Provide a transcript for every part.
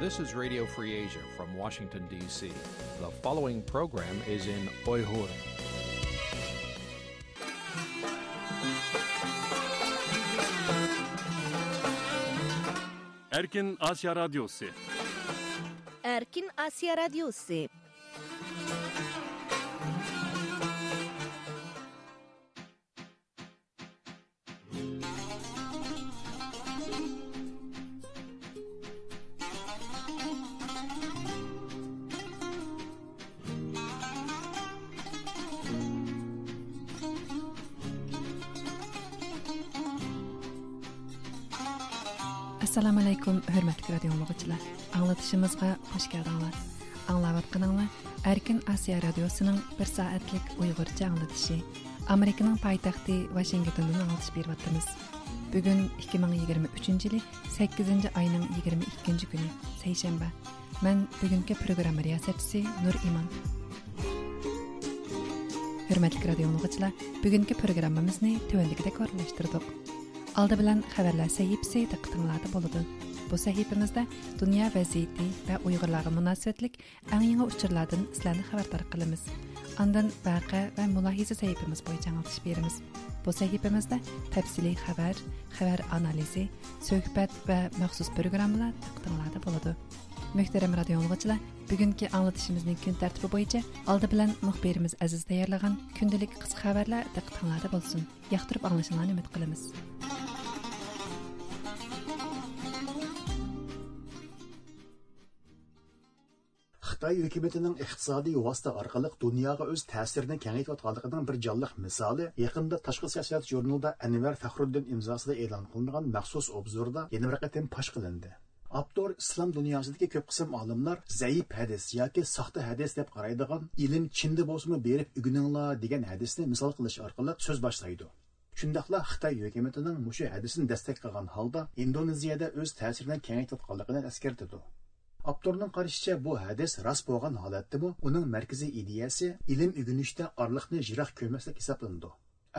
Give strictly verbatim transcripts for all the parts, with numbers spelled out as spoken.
This is Radio Free Asia from Washington, D C. The following program is in Uyghur. Erkin Asya Radyosu. Erkin Asya Radyosu. ئەسسالامۇئەلەيكۇم، ھۆرمەتلىك رادىيو ئاڭلىغۇچىلار. ئاڭلىتىشىمىزغا خۇش كەلدىڭلار. ئاڭلاۋاتقىنىڭلار ئەركىن ئاسىيا رادىيوسىنىڭ بىر سائەتلىك ئۇيغۇرچە ئاڭلىتىشى. ئامېرىكىنىڭ پايتەختى ۋاشىنگتوندىن ئاڭلىتىش بېرىۋاتىمىز. بۈگۈن ئىككى مىڭ يىگىرمە ئۈچىنچى يىلى سەككىزىنچى ئاينىڭ يىگىرمە ئىككىنچى كۈنى، سەيشەنبە. مەن بۈگۈنكى پروگرامما رىياسەتچىسى نۇر ئىمان. ھۆرمەتلىك رادىيو ئاڭلىغۇچىلار، بۈگۈنكى پروگراممىمىزنى تۆۋەندىكىدەك ئورۇنلاشتۇردۇق. ئالدى بىلەن خەۋەرلەر سەھىپىسى دىققىتىڭلاردا بولىدۇ. بۇ سەھىپىمىزدە دۇنيا ۋەزىيىتى ۋە ئۇيغۇرلارغا مۇناسىۋەتلىك ئەڭ يېڭى ئۇچۇرلاردىن سىلەرنى خەۋەردار قىلىمىز. ئاندىن ۋەقە ۋە مۇلاھىزە سەھىپىمىز بويىچە ئاڭلىتىش بېرىمىز. بۇ سەھىپىمىزدە تەپسىلىي خەۋەر، خەۋەر ئانالىزى، سۆھبەت ۋە مەخسۇس پروگراممىلار دىققىتىڭلاردا بولىدۇ. مۆھتەرەم رادىيو ئاڭلىغۇچىلار، بۈگۈنكى ئاڭلىتىشىمىزنىڭ كۈن تەرتىپى بويىچە ئالدى بىلەن مۇخبىرىمىز ئەزىز تەييارلىغان كۈندىلىك قىسقا خەۋەرلەر دىققىتىڭلاردا بولسۇن. ياقتۇرۇپ ئاڭلىشىڭلارنى ئۈمىد قىلىمىز. خىتاي ھۆكۈمىتىنىڭ ئىقتىسادىي ۋاسىتە ئارقىلىق دۇنياغا ئۆز تەسىرىنى كېڭەيتىۋاتقانلىقىنىڭ بىر جانلىق مىسالى يېقىندا تاشقى سىياسەت ژۇرنىلىدا ئەنۋەر فەخرۇددىن ئىمزاسىدا ئېلان قىلىنغان مەخسۇس ئوبزوردا يەنە بىر قېتىم پاش قىلىندى. ئاپتور ئىسلام دۇنياسىدىكى كۆپ قىسىم ئالىملار زەئىپ ھەدىس ياكى ساختا ھەدىس دەپ قارايدىغان «ئىلىم چىندا بولسىمۇ بېرىپ ئۆگىنىڭلار» دېگەن ھەدىسنى مىسال قىلىش ئارقىلىق سۆز باشلايدۇ. شۇنداقلا خىتاي ھۆكۈمىتىنىڭ مۇشۇ ھەدىسنى دەستەك قىلغان ھالدا ئىندونېزىيەدە ئۆز تەسىرىنى كېڭەيتىۋاتقانلىقىنى ئەسكەرتىدۇ. ئاپتورنىڭ قارىشىچە، بۇ ھەدىس راست بولغان ھالەتتىمۇ، ئۇنىڭ مەركىزىي ئىدىيەسى ئىلىم ئۆگىنىشتە ئارىلىقنى يىراق كۆرمەسلىك ھېسابلىنىدۇ.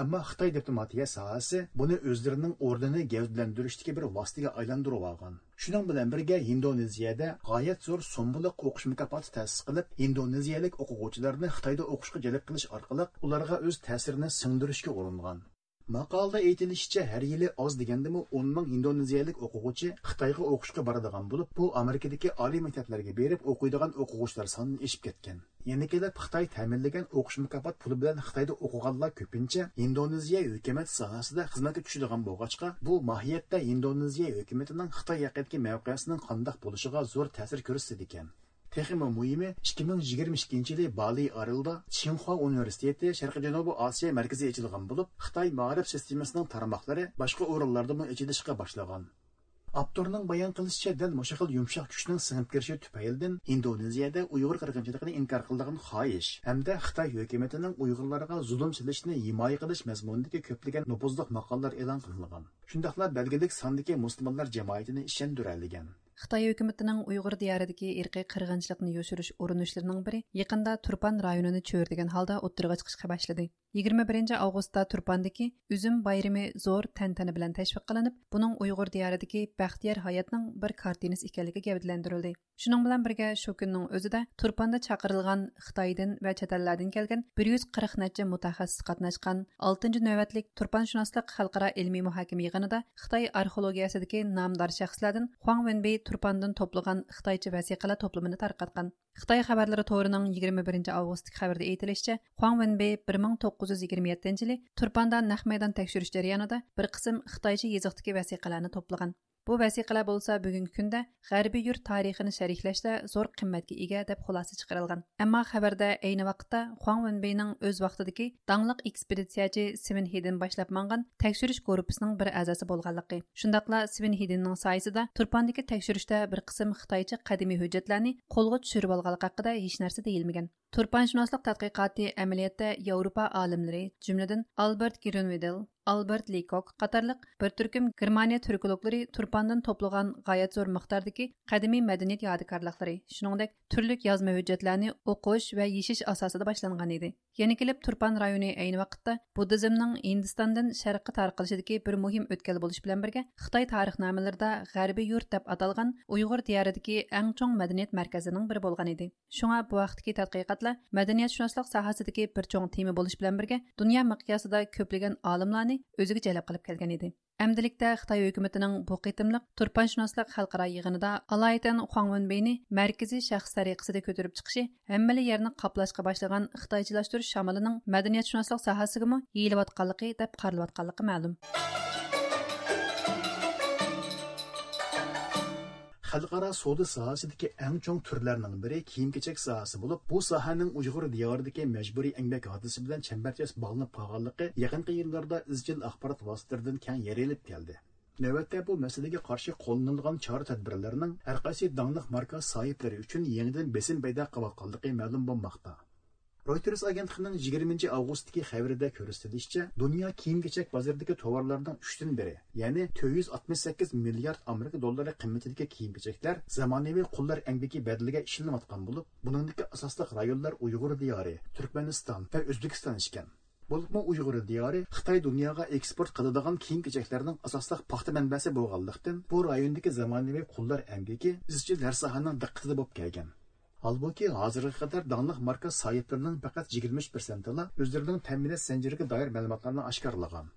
ئەمما خىتاي دىپلوماتىيە ساھەسى بۇنى ئۆزلىرىنىڭ ئورنىنى گەۋدىلەندۈرۈشتىكى بىر ۋاسىتىگە ئايلاندۇرۇۋالغان. شۇنىڭ بىلەن بىرگە، ئىندونېزىيەدە غايەت زور سوممىلىق ئوقۇش مۇكاپاتى تەسىس قىلىپ، ئىندونېزىيەلىك ئوقۇغۇچىلارنى خىتايدا ئوقۇشقا جەلپ قىلىش ئارقىلىق ئۇلارغا ئۆز تەسىرىنى سىڭدۈرۈشكە ئۇرۇنغان. ماقالىدا ئېيتىلىشىچە، ھەر يىلى ئاز دېگەندىمۇ ئون مىڭ ئىندونېزىيەلىك ئوقۇغۇچى خىتايغا ئوقۇشقا بارىدىغان بولۇپ، بۇ ئامېرىكىدىكى ئالىي مەكتەپلەرگە بېرىپ ئوقۇيدىغان ئوقۇغۇچىلار سانىدىن ئېشىپ كەتكەن. يەنە كېلىپ خىتاي تەمىنلىگەن ئوقۇش مۇكاپات پۇلى بىلەن خىتايدا ئوقۇغانلار كۆپىنچە ئىندونېزىيە ھۆكۈمەت ساھەسىدە خىزمەتكە چۈشىدىغان بولغاچقا، بۇ ماھىيەتتە ئىندونېزىيە ھۆكۈمىتىنىڭ خىتاي ھەققىدىكى مەۋقەسىنىڭ قانداق بولۇشىغا زور تەسىر كۆرسىتىدىكەن. تېخىمۇ مۇھىمى، ئىككى مىڭ يىگىرمە ئىككىنچى يىلى بالى ئارىلىدا چىڭخۇا ئۇنىۋېرسىتېتى شەرقىي جەنۇبىي ئاسىيا مەركىزى ئېچىلغان بولۇپ، خىتاي مائارىپ سىستېمىسىنىڭ تارماقلىرى باشقا ئورۇنلاردىمۇ ئېچىلىشقا باشلىغان. ئاپتورنىڭ بايان قىلىشىچە، دەل مۇشۇ خىل يۇمشاق كۈچنىڭ سىڭىپ كىرىشى تۈپەيلىدىن ئىندونېزىيەدە ئۇيغۇر قىرغىنچىلىقىنى ئىنكار قىلىدىغان خاھىش ھەمدە خىتاي ھۆكۈمىتىنىڭ ئۇيغۇرلارغا زۇلۇم سېلىشنى ھىمايە قىلىش مەزمۇنىدىكى كۆپلىگەن نوپۇزلۇق ماقالىلەر ئېلان قىلىنغان. شۇنداقلا بەلگىلىك ساندىكى مۇسۇلمانلار جامائىتىنى ئىشەندۈرەلىگەن. خىتاي ھۆكۈمىتىنىڭ ئۇيغۇر دىيارىدىكى ئىرقىي قىرغىنچىلىقنى يوشۇرۇش ئۇرۇنۇشلىرىنىڭ بىرى يېقىندا تۇرپان رايونىنى چۆرىدىگەن ھالدا ئوتتۇرىغا چىقىشقا باشلىدى. يىگىرمە بىرىنچى ئاۋغۇستتا تۇرپاندىكى ئۈزۈم بايرىمى زور تەنتەنە بىلەن تەشۋىق قىلىنىپ، بۇنىڭ ئۇيغۇر دىيارىدىكى بەختىيار ھاياتنىڭ بىر كارتىنىسى ئىكەنلىكى گەۋدىلەندۈرۈلدى. شۇنىڭ بىلەن بىرگە، شۇ كۈننىڭ ئۆزىدە تۇرپاندا چاقىرىلغان خىتايدىن ۋە چەت ئەللەردىن كەلگەن بىر يۈز قىرىق نەچچە مۇتەخەسسىس قاتناشقان ئالتىنچى نۆۋەتلىك تۇرپانشۇناسلىق خەلقئارا ئىلمىي مۇھاكىمە يىغىنىدا خىتاي ئارخېئولوگىيەسىدىكى نامدار شەخسلەردىن خۇاڭ ۋېنبېي تۇرپاندىن توپلىغان خىتايچە ۋەسىقىلەر توپلىمىنى تارقاتقان. خىتاي خەۋەرلىرى تورىنىڭ يىگىرمە بىرىنچى ئاۋغۇستتىكى خەۋىرىدە ئېيتىلىشىچە، خۇاڭ ۋېنبېي بىر مىڭ توققۇز يۈز يىگىرمە يەتتىنچى يىلى تۇرپاندا نەق مەيدان تەكشۈرۈش جەريانىدا بىر قىسىم خىتايچە يېزىقتىكى ۋەسىقىلەرنى توپلىغان. بۇ ۋەسىقىلەر بولسا بۈگۈنكى كۈندە غەربىي يۇرت تارىخىنى شەرھلەشتە زور قىممەتكە ئىگە، دەپ خۇلاسە چىقىرىلغان. ئەمما خەۋەردە ئەينى ۋاقىتتا خۇاڭ ۋېنبېينىڭ ئۆز ۋاقتىدىكى داڭلىق ئېكسپېدىتسىيەچى سۋېن ھېدېن باشلاپ ماڭغان تەكشۈرۈش گۇرۇپپىسىنىڭ بىر ئەزاسى بولغانلىقى، شۇنداقلا سۋېن ھېدېننىڭ سايىسىدا تۇرپاندىكى تەكشۈرۈشتە بىر قىسىم خىتايچە قەدىمىي ھۆججەتلەرنى قولغا چۈشۈرۈۋالغانلىقى ھەققىدە ھېچنەرسە دېيىلمىگەن. تۇرپانشۇناسلىق تەتقىقاتى ئەمەلىيەتتە ياۋروپا ئالىملىرى، جۈملىدىن ئالبېرت گرۈنۋىدېل، ئالبېرت لېكوك قاتارلىق بىر تۈركۈم گېرمانىيە تۈركولوگلىرى تۇرپاندىن توپلىغان غايەت زور مىقداردىكى قەدىمىي مەدەنىيەت يادىكارلىقلىرى، شۇنىڭدەك تۈرلۈك يازما ھۆججەتلەرنى ئوقۇش ۋە يېشىش ئاساسىدا باشلانغان ئىدى. يەنە كېلىپ تۇرپان رايونى ئەينى ۋاقىتتا بۇددىزمنىڭ ھىندىستاندىن شەرققە تارقىلىشىدىكى بىر مۇھىم ئۆتكەل بولۇش بىلەن بىرگە، خىتاي تارىخنامىلىرىدا غەربىي يۇرت دەپ ئاتالغان ئۇيغۇر دىيارىدىكى ئەڭ چوڭ مەدەنىيەت مەركەزلىرىنىڭ بىرى بولغان ئىدى. شۇڭا بۇ ھەقتىكى تەتقىقاتلار مەدەنىيەتشۇناسلىق ساھەسىدىكى بىر چوڭ تېما بولۇش بىلەن بىرگە، دۇنيا مىقياسىدا كۆپلىگەن ئالىملارنى ئۆزىگە جەلپ قىلىپ كەلگەن ئىدى. ئەمدىلىكتە خىتاي ھۆكۈمىتىنىڭ بۇ قېتىملىق تۇرپانشۇناسلىق خەلقئارا يىغىنىدا ئالايىتەن خۇاڭ ۋېنبېينى مەركىزىي شەخس سەرىقىسىدە كۆتۈرۈپ چىقىشى ھەممىلا يەرنى قاپلاشقا باشلىغان خىتايچىلاشتۇرۇش شامىلىنىڭ مەدەنىيەتشۇناسلىق ساھەسىگىمۇ يېيىلىۋاتقانلىقى دەپ قارىلىۋاتقانلىقى مەلۇم. خەلقئارا سودا ساھەسىدىكى ئەڭ چوڭ تۈرلەرنىڭ بىرى كىيىم-كېچەك ساھەسى بولۇپ، بۇ ساھەنىڭ ئۇيغۇر دىيارىدىكى مەجبۇرىي ئەمگەك ھادىسىسى بىلەن چەمبەرچاس باغلىنىپ قالغانلىقى يېقىنقى يىللاردا ئىزچىل ئاخبارات ۋاسىتىلىرىدىن كەڭ يايرىلىپ كەلدى. نۆۋەتتە بۇ مەسىلىگە قارشى قوللىنىلغان چارە-تەدبىرلەرنىڭ ھەرقايسى داڭلىق ماركا ساھىبلىرى ئۈچۈن يېڭىدىن بېسىم پەيدا قىلىۋاتقانلىقى مەلۇم بولماقتا. رويتېرس ئاگېنتلىقىنىڭ يىگىرمىنچى ئاۋغۇستتىكى خەۋىرىدە كۆرسىتىلىشىچە، دۇنيا كىيىم-كېچەك بازىرىدىكى توۋارلارنىڭ ئۈچتىن بىرى، يەنى تۆت يۈز ئاتمىش سەككىز مىليارد ئامېرىكا دوللىرى قىممىتىدىكى كىيىم-كېچەكلەر زامانىۋى قۇللار ئەمگىكى بەدىلىگە ئىشلىنىۋاتقان بولۇپ، بۇنىڭدىكى ئاساسلىق رايونلار ئۇيغۇر دىيارى، تۈركمەنىستان ۋە ئۆزبېكىستان ئىكەن. بولۇپمۇ ئۇيغۇر دىيارى خىتاي دۇنياغا ئېكسپورت قىلىدىغان كىيىم-كېچەكلەرنىڭ ئاساسلىق پاختا مەنبەسى بولغانلىقتىن، بۇ رايوندىكى زامانىۋى قۇللار ئەمگىكى ئىزچىل ھەر ساھەنىڭ دىققىتىدە بولۇپ كەلگەن. ھالبۇكى، ھازىرغا قەدەر داڭلىق ماركا ساھىبلىرىنىڭ پەقەت يىگىرمە ئۈچ پىرسەنتىلا ئۆزلىرىنىڭ تەمىنات زەنجىرىگە دائىر مەلۇماتلارنى ئاشكارىلىغان.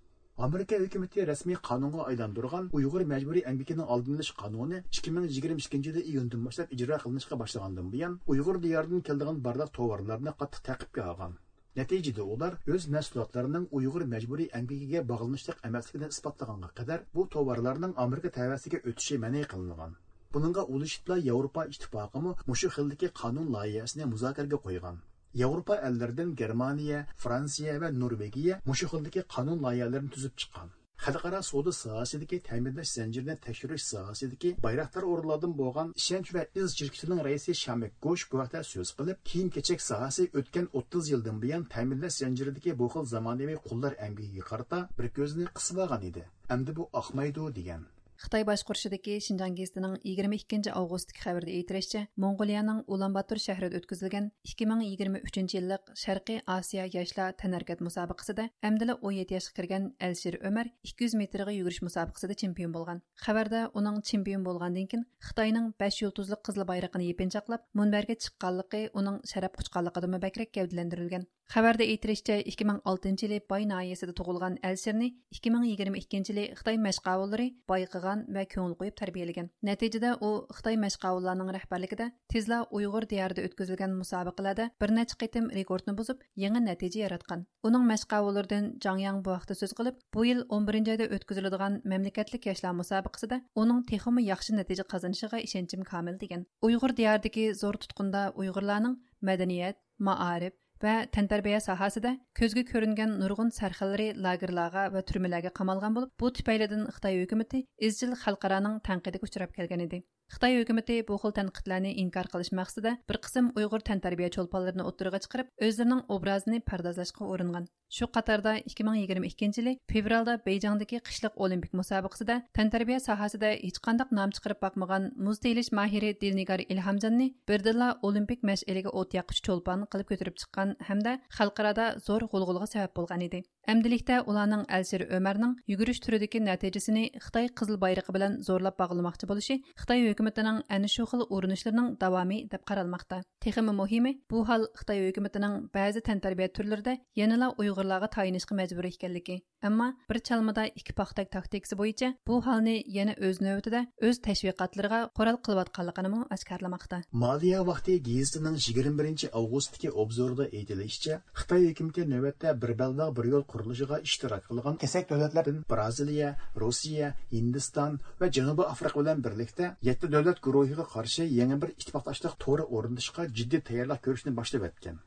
ئامېرىكا ھۆكۈمىتى رەسمىي قانۇنغا ئايلاندۇرغان ئۇيغۇر مەجبۇرىي ئەمگىكىنىڭ ئالدىنى ئېلىش قانۇنى ئىككى مىڭ يىگىرمە ئىككىنچى يىلى ئىيۇندىن باشلاپ ئىجرا قىلىنىشقا باشلىغاندىن بۇيان، ئۇيغۇر دىيارىدىن كېلىدىغان بارلىق توۋارلارنى قاتتىق تەقىپكە ئالغان. نەتىجىدە ئۇلار ئۆز مەھسۇلاتلىرىنىڭ ئۇيغۇر مەجبۇرىي ئەمگىكىگە باغلىنىشلىق ئەمەسلىكىنى ئىسپاتلىغانغا قەدەر، بۇ توۋارلارنىڭ ئامېرىكا تەۋەسىگە ئۆتۈشى مەنئى قىلىنغان. بۇنىڭغا ئۇلىشىپلا ياۋروپا ئىتتىپاقىمۇ مۇشۇ خىلدىكى قانۇن لايىھەسىنى مۇزاكىرىگە قويغان. ياۋروپا ئەللىرىدىن گېرمانىيە، فرانسىيە ۋە نورۋېگىيە مۇشۇ خىلدىكى قانۇن لايىھەلىرىنى تۈزۈپ چىققان. خەلقئارا سودا ساھەسىدىكى تەمىنلەش زەنجىرىنى تەكشۈرۈش ساھەسىدىكى بايراقدار ئورۇنلاردىن بولغان ئىشەنچ ۋە ئىز شىركىتىنىڭ رەئىسى شامىك گوش بۇ ھەقتە سۆز قىلىپ، كىيىم-كېچەك ساھەسى ئۆتكەن ئوتتۇز يىلدىن بۇيان تەمىنلەش زەنجىرىدىكى بۇ خىل زامانىۋى قۇللار ئەمگىكىگە قارىتا بىر كۆزىنى قىسىۋالغان ئىدى. ئەمدى بۇ ئاقمايدۇ، دېگەن. خىتاي باشقۇرۇشىدىكى شىنجاڭ گېزىتىنىڭ يىگىرمە ئىككىنچى ئاۋغۇستتىكى خەۋىرىدە ئېيتىلىشىچە، موڭغۇلىيەنىڭ ئۇلان باتور شەھىرىدە ئۆتكۈزۈلگەن ئىككى مىڭ يىگىرمە ئۈچىنچى يىللىق شەرقىي ئاسىيا ياشلار تەنھەرىكەت مۇسابىقىسىدە ئەمدىلا ئون يەتتە ياشقا كىرگەن ئەلشىر ئۆمەر ئىككى يۈز مېتىرغا يۈگۈرۈش مۇسابىقىسىدە چېمپىيون بولغان. خەۋەردە ئۇنىڭ چېمپىيون بولغاندىن كېيىن خىتاينىڭ بەش يۇلتۇزلۇق قىزىل بايرىقىنى يېپىنچاقلاپ مۇنبەرگە چىققانلىقى ئۇنىڭ شەرەپ قۇچقانلىقىدىنمۇ بەكرەك گەۋدىلەندۈرۈلگەن. خەۋەردە ئېيتىلىشىچە، ئىككى مىڭ ئالتىنچى يىلى باي ناھىيەسىدە تۇغۇلغان ئەلشىرنى ئىككى مىڭ يىگىرمە ئىككىنچى يىلى خىتاي مەشقاۋۇللىرى بايقىغان ۋە كۆڭۈل قويۇپ تەربىيەلىگەن. نەتىجىدە ئۇ خىتاي مەشقاۋۇللارنىڭ رەھبەرلىكىدە تېزلا ئۇيغۇر دىيارىدا ئۆتكۈزۈلگەن مۇسابىقىلەردە بىر نەچچە قېتىم رېكورتنى بۇزۇپ، يېڭى نەتىجە ياراتقان. ئۇنىڭ مەشقاۋۇللىرىدىن جاڭ ياڭ بۇ ھەقتە سۆز قىلىپ، بۇ يىل ئون بىرىنچى ئايدا ئۆتكۈزۈلىدىغان مەملىكەتلىك ياشلار مۇسابىقىسىدە ئۇنىڭ تېخىمۇ ياخشى نەتىجە قازىنىشىغا ئىشەنچىم كامىل، دېگەن. ئۇيغۇر دىيارىدىكى زور تۇتقۇندا ئۇيغۇرلارنىڭ مەدەنىيەت، مائارىپ، ۋە تەنتەربىيە ساھەسىدە كۆزگە كۆرۈنگەن نۇرغۇن سەرخىللىرى لاگېرلارغا ۋە تۈرمىلەرگە قامالغان بولۇپ، بۇ تۈپەيلىدىن خىتاي ھۆكۈمىتى ئىزچىل خەلقئارانىڭ تەنقىدىگە ئۇچراپ كەلگەن ئىدى. خىتاي ھۆكۈمىتى بۇ خىل تەنقىدلەرنى ئىنكار قىلىش مەقسىتىدە بىر قىسىم ئۇيغۇر تەنتەربىيە چولپانلىرىنى ئوتتۇرىغا چىقىرىپ، ئۆزلىرىنىڭ ئوبرازىنى پەردازلاشقا ئۇرۇنغان. شۇ قاتاردا ئىككى مىڭ يىگىرمە ئىككىنچى يىلى فېۋرالدا بېيجىڭدىكى قىشلىق ئولىمپىك مۇسابىقىسىدە تەنتەربىيە ساھەسىدە ھېچقانداق نام چىقىرىپ باقمىغان مۇز تېيىلىش ماھىرى دىلنىگار ئىلھامجاننى بىردىنلا ئولىمپىك مەشئىلىگە ئوت ياققۇچى چولپان قىلىپ كۆتۈرۈپ چىققان ھەمدە خەلقئارادا زور غۇلغۇلىغا سەۋەب بولغان ئىدى. ئەمدىلىكتە ئۇلارنىڭ ئەلشىر ئۆمەرنىڭ يۈگۈرۈش تۈرىدىكى نەتىجىسىنى خىتاي قىزىل بايرىقى بىلەن زورلاپ باغلىماقچى بولۇشى خىتاي ھۆكۈمىتىنىڭ ئەنە شۇ خىل ئۇرۇنۇشلىرىنىڭ داۋامى دەپ قارالماقتا. تېخىمۇ مۇھىمى، بۇ ھال خىتاي ھۆكۈمىتىنىڭ بەزى تەنتەربىيە تۈرلىرىدە يەنىلا ئۇيغۇرلارغا تايىنىشقا مەجبۇر ئىكەنلىكى. ئەمما بىر چالمىدا ئىككى پاختەك تاكتىكىسى بويىچە بۇ ھالنى يەنە ئۆز نۆۋىتىدە ئۆز تەشۋىقاتلىرىغا قورال قىلىۋاتقانلىقىنىمۇ ئاشكارىلىماقتا. مالىيە ۋاقتى گېزىتىنىڭ يىگىرمە بىرىنچى ئاۋغۇستتىكى ئوبزورىدا ئېيتىلىشىچە، خىتاي ھۆكۈمىتى نۆۋەتتە بىر بەلباغ بىر يول قۇرۇلۇشىغا ئىشتىراك قىلغان كېسەك دۆلەتلەردىن بىرازىلىيە، روسىيە، ھىندىستان ۋە جەنۇبىي ئافرىقا بىلەن بىرلىكتە يەتتە دۆلەت گۇرۇھىغا قارشى يېڭى بىر ئىتتىپاقداشلىق تورى ئورنىتىشقا جىددىي تەييارلىق كۆرۈشنى باشلىۋەتكەن.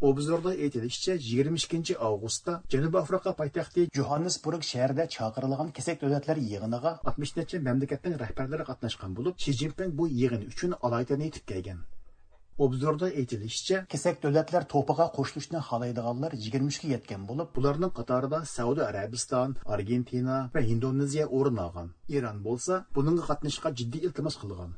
ئوبزوردا ئېيتىلىشىچە، يىگىرمە ئىككىنچى ئاۋغۇستتا جەنۇبىي ئافرىقا پايتەختى جوھاننېسبۇرگ شەھىرىدە چاقىرىلغان كېسەك دۆلەتلەر يىغىنىغا ئاتمىش نەچچە مەملىكەتنىڭ رەھبەرلىرى قاتناشقان بولۇپ، شى جىنپىڭ بۇ يىغىن ئۈچۈن ئالايىتەن يېتىپ كەلگەن. ئوبزوردا ئېيتىلىشىچە، كېسەك دۆلەتلەر توپىغا قوشۇلۇشنى خالايدىغانلار يىگىرمە ئۈچكە يەتكەن بولۇپ، بۇلارنىڭ قاتارىدا سەئۇدى ئەرەبىستان، ئارگېنتىنا ۋە ھىندونېزىيە ئورۇن ئالغان. ئىران بولسا بۇنىڭغا قاتنىشىشقا جىددىي ئىلتىماس قىلغان.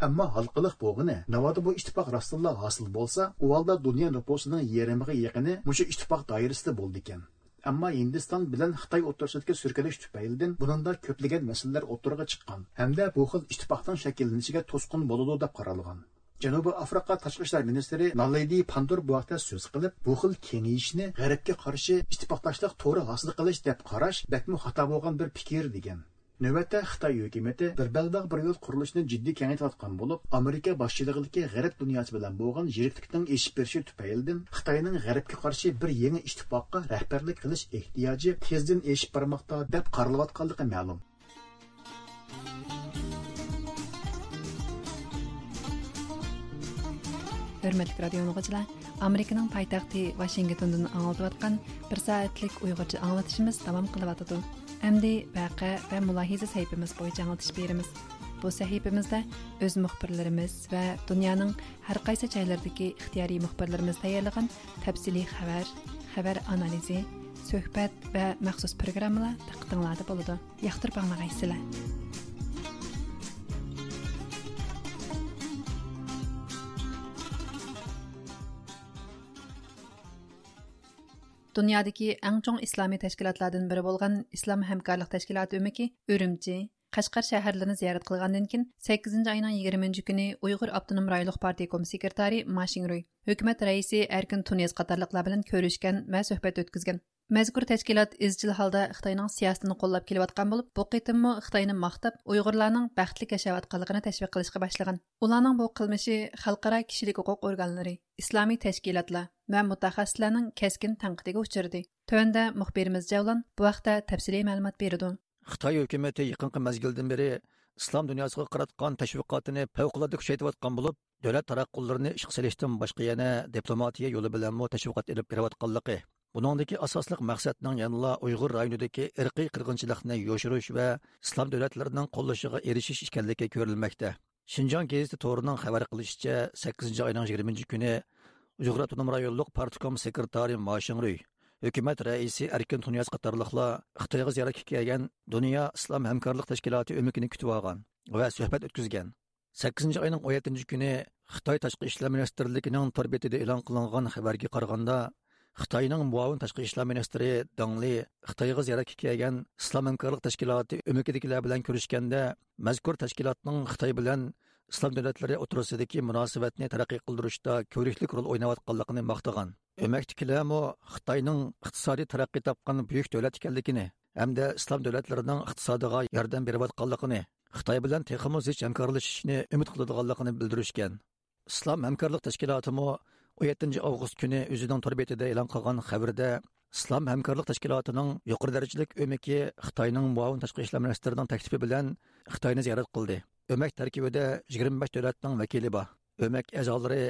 ئەمما ھالقىلىق بولغىنى، ناۋادا بۇ ئىتتىپاق راستتىنلا ھاسىل بولسا، ئۇ ھالدا دۇنيا نوپۇسىنىڭ يېرىمىغا يېقىنى مۇشۇ ئىتتىپاق دائىرىسىدە بولىدىكەن. ئەمما ھىندىستان بىلەن خىتاي ئوتتۇرىسىدىكى سۈركىلىش تۈپەيلىدىن بۇنىڭدا كۆپلىگەن مەسىلىلەر ئوتتۇرىغا چىققان ھەمدە بۇ خىل ئىتتىپاقنىڭ شەكىللىنىشىگە توسقۇن بولىدۇ دەپ قارالغان. جەنۇبىي ئافرىقا تاشقى ئىشلار مىنىستىرى نالېدى پاندور بۇ ھەقتە سۆز قىلىپ، بۇ خىل كېڭىيىشنى غەربكە قارشى ئىتتىپاقداشلىق تورى ھاسىل قىلىش دەپ قاراش بەكمۇ خاتا بولغان بىر پىكىر، دېگەن. نۆۋەتتە خىتاي ھۆكۈمىتى بىر بەلباغ بىر يول قۇرۇلۇشىنى جىددىي كېڭەيتىۋاتقان بولۇپ، ئامېرىكا باشچىلىقىدىكى غەرب دۇنياسى بىلەن بولغان يىرىكلىكنىڭ ئېشىپ بېرىشى تۈپەيلىدىن خىتاينىڭ غەربكە قارشى بىر يېڭى ئىتتىپاققا رەھبەرلىك قىلىش ئېھتىياجى تېزدىن ئېشىپ بارماقتا دەپ قارىلىۋاتقانلىقى مەلۇم. ھۆرمەتلىك رادىيو ئاڭلىغۇچىلار، ئامېرىكىنىڭ پايتەختى ۋاشىنگتوندىن ئاڭلىتىۋاتقان بىر سائەتلىك ئۇيغۇرچە ئاڭلىتىشىمىز داۋام قىلىۋاتىدۇ. ئەمدى ۋەقە ۋە مۇلاھىزە سەھىپىمىز بويىچە ئاڭلىتىش بېرىمىز. بۇ سەھىپىمىزدە ئۆز مۇخبىرلىرىمىز ۋە دۇنيانىڭ ھەر قايسى جايلىرىدىكى ئىختىيارىي مۇخبىرلىرىمىز تەييارلىغان تەپسىلىي خەۋەر، خەۋەر ئانالىزى، سۆھبەت ۋە مەخسۇس پروگراممىلار دىققىتىڭلاردا بولىدۇ. ياقتۇرۇپ ئاڭلىغايسىلەر. دۇنيادىكى ئەڭ چوڭ ئىسلامىي تەشكىلاتلاردىن بىرى بولغان ئىسلام ھەمكارلىق تەشكىلاتى ئۆمىكى ئۈرۈمچى، قەشقەر شەھەرلىرىنى زىيارەت قىلغاندىن كېيىن، سەككىزىنچى ئاينىڭ يىگىرمە كۈنى ئۇيغۇر ئاپتونوم رايونلۇق پارتىيە كوم سېكرېتارى ما شىڭرۇي، ھۆكۈمەت رەئىسى ئەركىن تۇنىياز قاتارلىقلار بىلەن كۆرۈشكەن ۋە سۆھبەت ئۆتكۈزگەن. مەزكۇر تەشكىلات ئىزچىل ھالدا خىتاينىڭ سىياسىتىنى قوللاپ كېلىۋاتقان بولۇپ، بۇ قېتىممۇ خىتاينى ماختاپ، ئۇيغۇرلارنىڭ بەختلىك ياشاۋاتقانلىقىنى تەشۋىق قىلىشقا باشلىغان. ئۇلارنىڭ بۇ قىلمىشى خەلقئارا كىشىلىك ھوقۇق ئورگانلىرى، ئىسلامىي تەشكىلاتلار ۋە مۇتەخەسسىسلەرنىڭ كەسكىن تەنقىدىگە ئۇچرىدى. تۆۋەندە مۇخبىرىمىز جەۋلان بۇ ھەقتە تەپسىلىي مەلۇمات بېرىدۇ. خىتاي ھۆكۈمىتى يېقىنقى مەزگىلدىن بېرى ئىسلام دۇنياسىغا قاراتقان تەشۋىقاتىنى پەۋقۇلئاددە كۈچەيتىۋاتقان بولۇپ، دۆلەت تاراتقۇلىرىنى ئىشقا سېلىشتىن باشقا يەنە دىپلوماتىيە يولى بىلەنمۇ تەشۋىقات ئېلىپ بېرىۋاتقانلىقى، بۇنىڭدىكى ئاساسلىق مەقسەتنىڭ يەنىلا ئۇيغۇر رايونىدىكى ئىرقىي قىرغىنچىلىقنى يوشۇرۇش ۋە ئىسلام دۆلەتلىرىنىڭ قوللىشىغا ئېرىشىش ئىكەنلىكى كۆرۈلمەكتە. شىنجاڭ گېزىتى تورىنىڭ خەۋەر قىلىشىچە، سەككىزىنچى ئاينىڭ يىگىرمىنچى كۈنى ئۇيغۇر ئاپتونوم رايونلۇق پارتكوم سېكرېتارى ما شىڭرۇي، ھۆكۈمەت رەئىسى ئەركىن تۇنىياز قاتارلىقلار خىتايغا زىيارەتكە كەلگەن دۇنيا ئىسلام ھەمكارلىق تەشكىلاتى ئۆمىكىنى كۈتۈۋالغان ۋە سۆھبەت ئۆتكۈزگەن. سەككىزىنچى ئاينىڭ ئون يەتتىنچى كۈنى خىتاي تاشقى ئىشلار مىنىستىرلىكىنىڭ تور بېتىدە ئېلان قىلىنغان خەۋەرگە قارىغاندا، خىتاينىڭ مۇئاۋىن تاشقى ئىشلار مىنىستىرى دېڭ لى خىتايغا زىيارەتكە كەلگەن ئىسلام ھەمكارلىق تەشكىلاتى ئۆمىكىدىكىلەر بىلەن كۆرۈشكەندە، مەزكۇر تەشكىلاتنىڭ خىتاي بىلەن ئىسلام دۆلەتلىرى ئوتتۇرىسىدىكى مۇناسىۋەتنى تەرەققىي قىلدۇرۇشتا كۆۋرۈكلۈك رول ئويناۋاتقانلىقىنى ماختىغان. ئۆمەكتىكىلەرمۇ خىتاينىڭ ئىقتىسادىي تەرەققىي تاپقان بۈيۈك دۆلەت ئىكەنلىكىنى ھەمدە ئىسلام دۆلەتلىرىنىڭ ئىقتىسادىغا ياردەم بېرىۋاتقانلىقىنى، خىتاي بىلەن تېخىمۇ زىچ ھەمكارلىشىشنى ئۈمىد قىلىدىغانلىقىنى بىلدۈرۈشكەن. ئىسلام ھەمكارلىق تەشكىلاتىمۇ ئون يەتتىنچى ئاۋغۇست كۈنى ئۆزىنىڭ تور بېتىدە ئېلان قىلغان خەۋىرىدە، ئىسلام ھەمكارلىق تەشكىلاتىنىڭ يۇقىرى دەرىجىلىك ئۆمىكى خىتاينىڭ مۇئاۋىن تاشقى ئىشلار مىنىستىرىنىڭ تەكلىپى بىلەن خىتاينى زىيارەت قىلدى. ئۆمەك تەركىبىدە يىگىرمە بەش دۆلەتنىڭ ۋەكىلى بار. ئۆمەك ئەزالىرى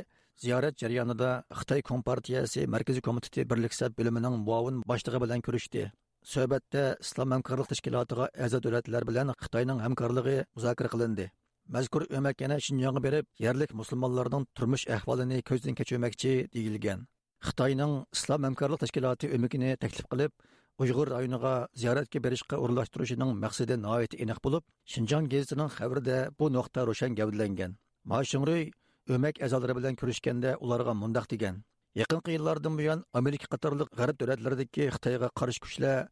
زىيارەت جەريانىدا خىتاي كومپارتىيەسى مەركىزىي كومىتېتى بىرلىك سەپ بۆلۈمىنىڭ مۇئاۋىن باشلىقى بىلەن كۆرۈشتى. سۆھبەتتە ئىسلام ھەمكارلىق تەشكىلاتىغا ئەزا دۆلەتلەر بىلەن خىتاينىڭ ھەمكارلىقى مۇزاكىرە قىلىندى. مەزكۇر ئۆمەك يەنە شىنجاڭغا بېرىپ، يەرلىك مۇسۇلمانلارنىڭ تۇرمۇش ئەھۋالىنى كۆزدىن كەچۈرمەكچى، دېيىلگەن. خىتاينىڭ ئىسلام ھەمكارلىق تەشكىلاتى ئۆمىكىنى تەكلىپ قىلىپ، ئۇيغۇر رايونىغا زىيارەتكە بېرىشقا ئورۇنلاشتۇرۇشىنىڭ مەقسىتى ناھايىتى ئېنىق بولۇپ، شىنجاڭ گېزىتىنىڭ خەۋىرىدە بۇ نۇقتا روشەن گەۋدىلەنگەن. ما شىڭرۇي ئۆمەك ئەزالىرى بىلەن كۆرۈشكەندە ئۇلارغا مۇنداق دېگەن: يېقىنقى يىللاردىن بۇيان، ئامېرىكا قاتارلىق غەرب دۆلەتلىرىدىكى خىتايغا قارشى كۈچلەر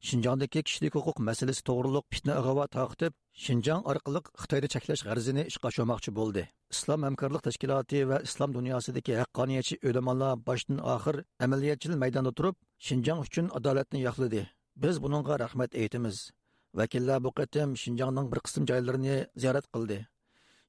شىنجاڭدىكى كىشىلىك ھوقۇق مەسىلىسى توغرۇلۇق پىتنە ئىغۋا تارقىتىپ، شىنجاڭ ئارقىلىق خىتاينى چەكلەش غەرىزىنى ئىشقا ئاشۇرماقچى بولدى. ئىسلام ھەمكارلىق تەشكىلاتى ۋە ئىسلام دۇنياسىدىكى ھەققانىيەتچى ئۆلىمالار باشتىن ئاخىر ئەمەلىيەتچىل مەيداندا تۇرۇپ، شىنجاڭ ئۈچۈن ئادالەتنى ياقلىدى. بىز بۇنىڭغا رەھمەت ئېيتىمىز. ۋەكىللەر بۇ قېتىم شىنجاڭنىڭ بىر قىسىم جايلىرىنى زىيارەت قىلدى.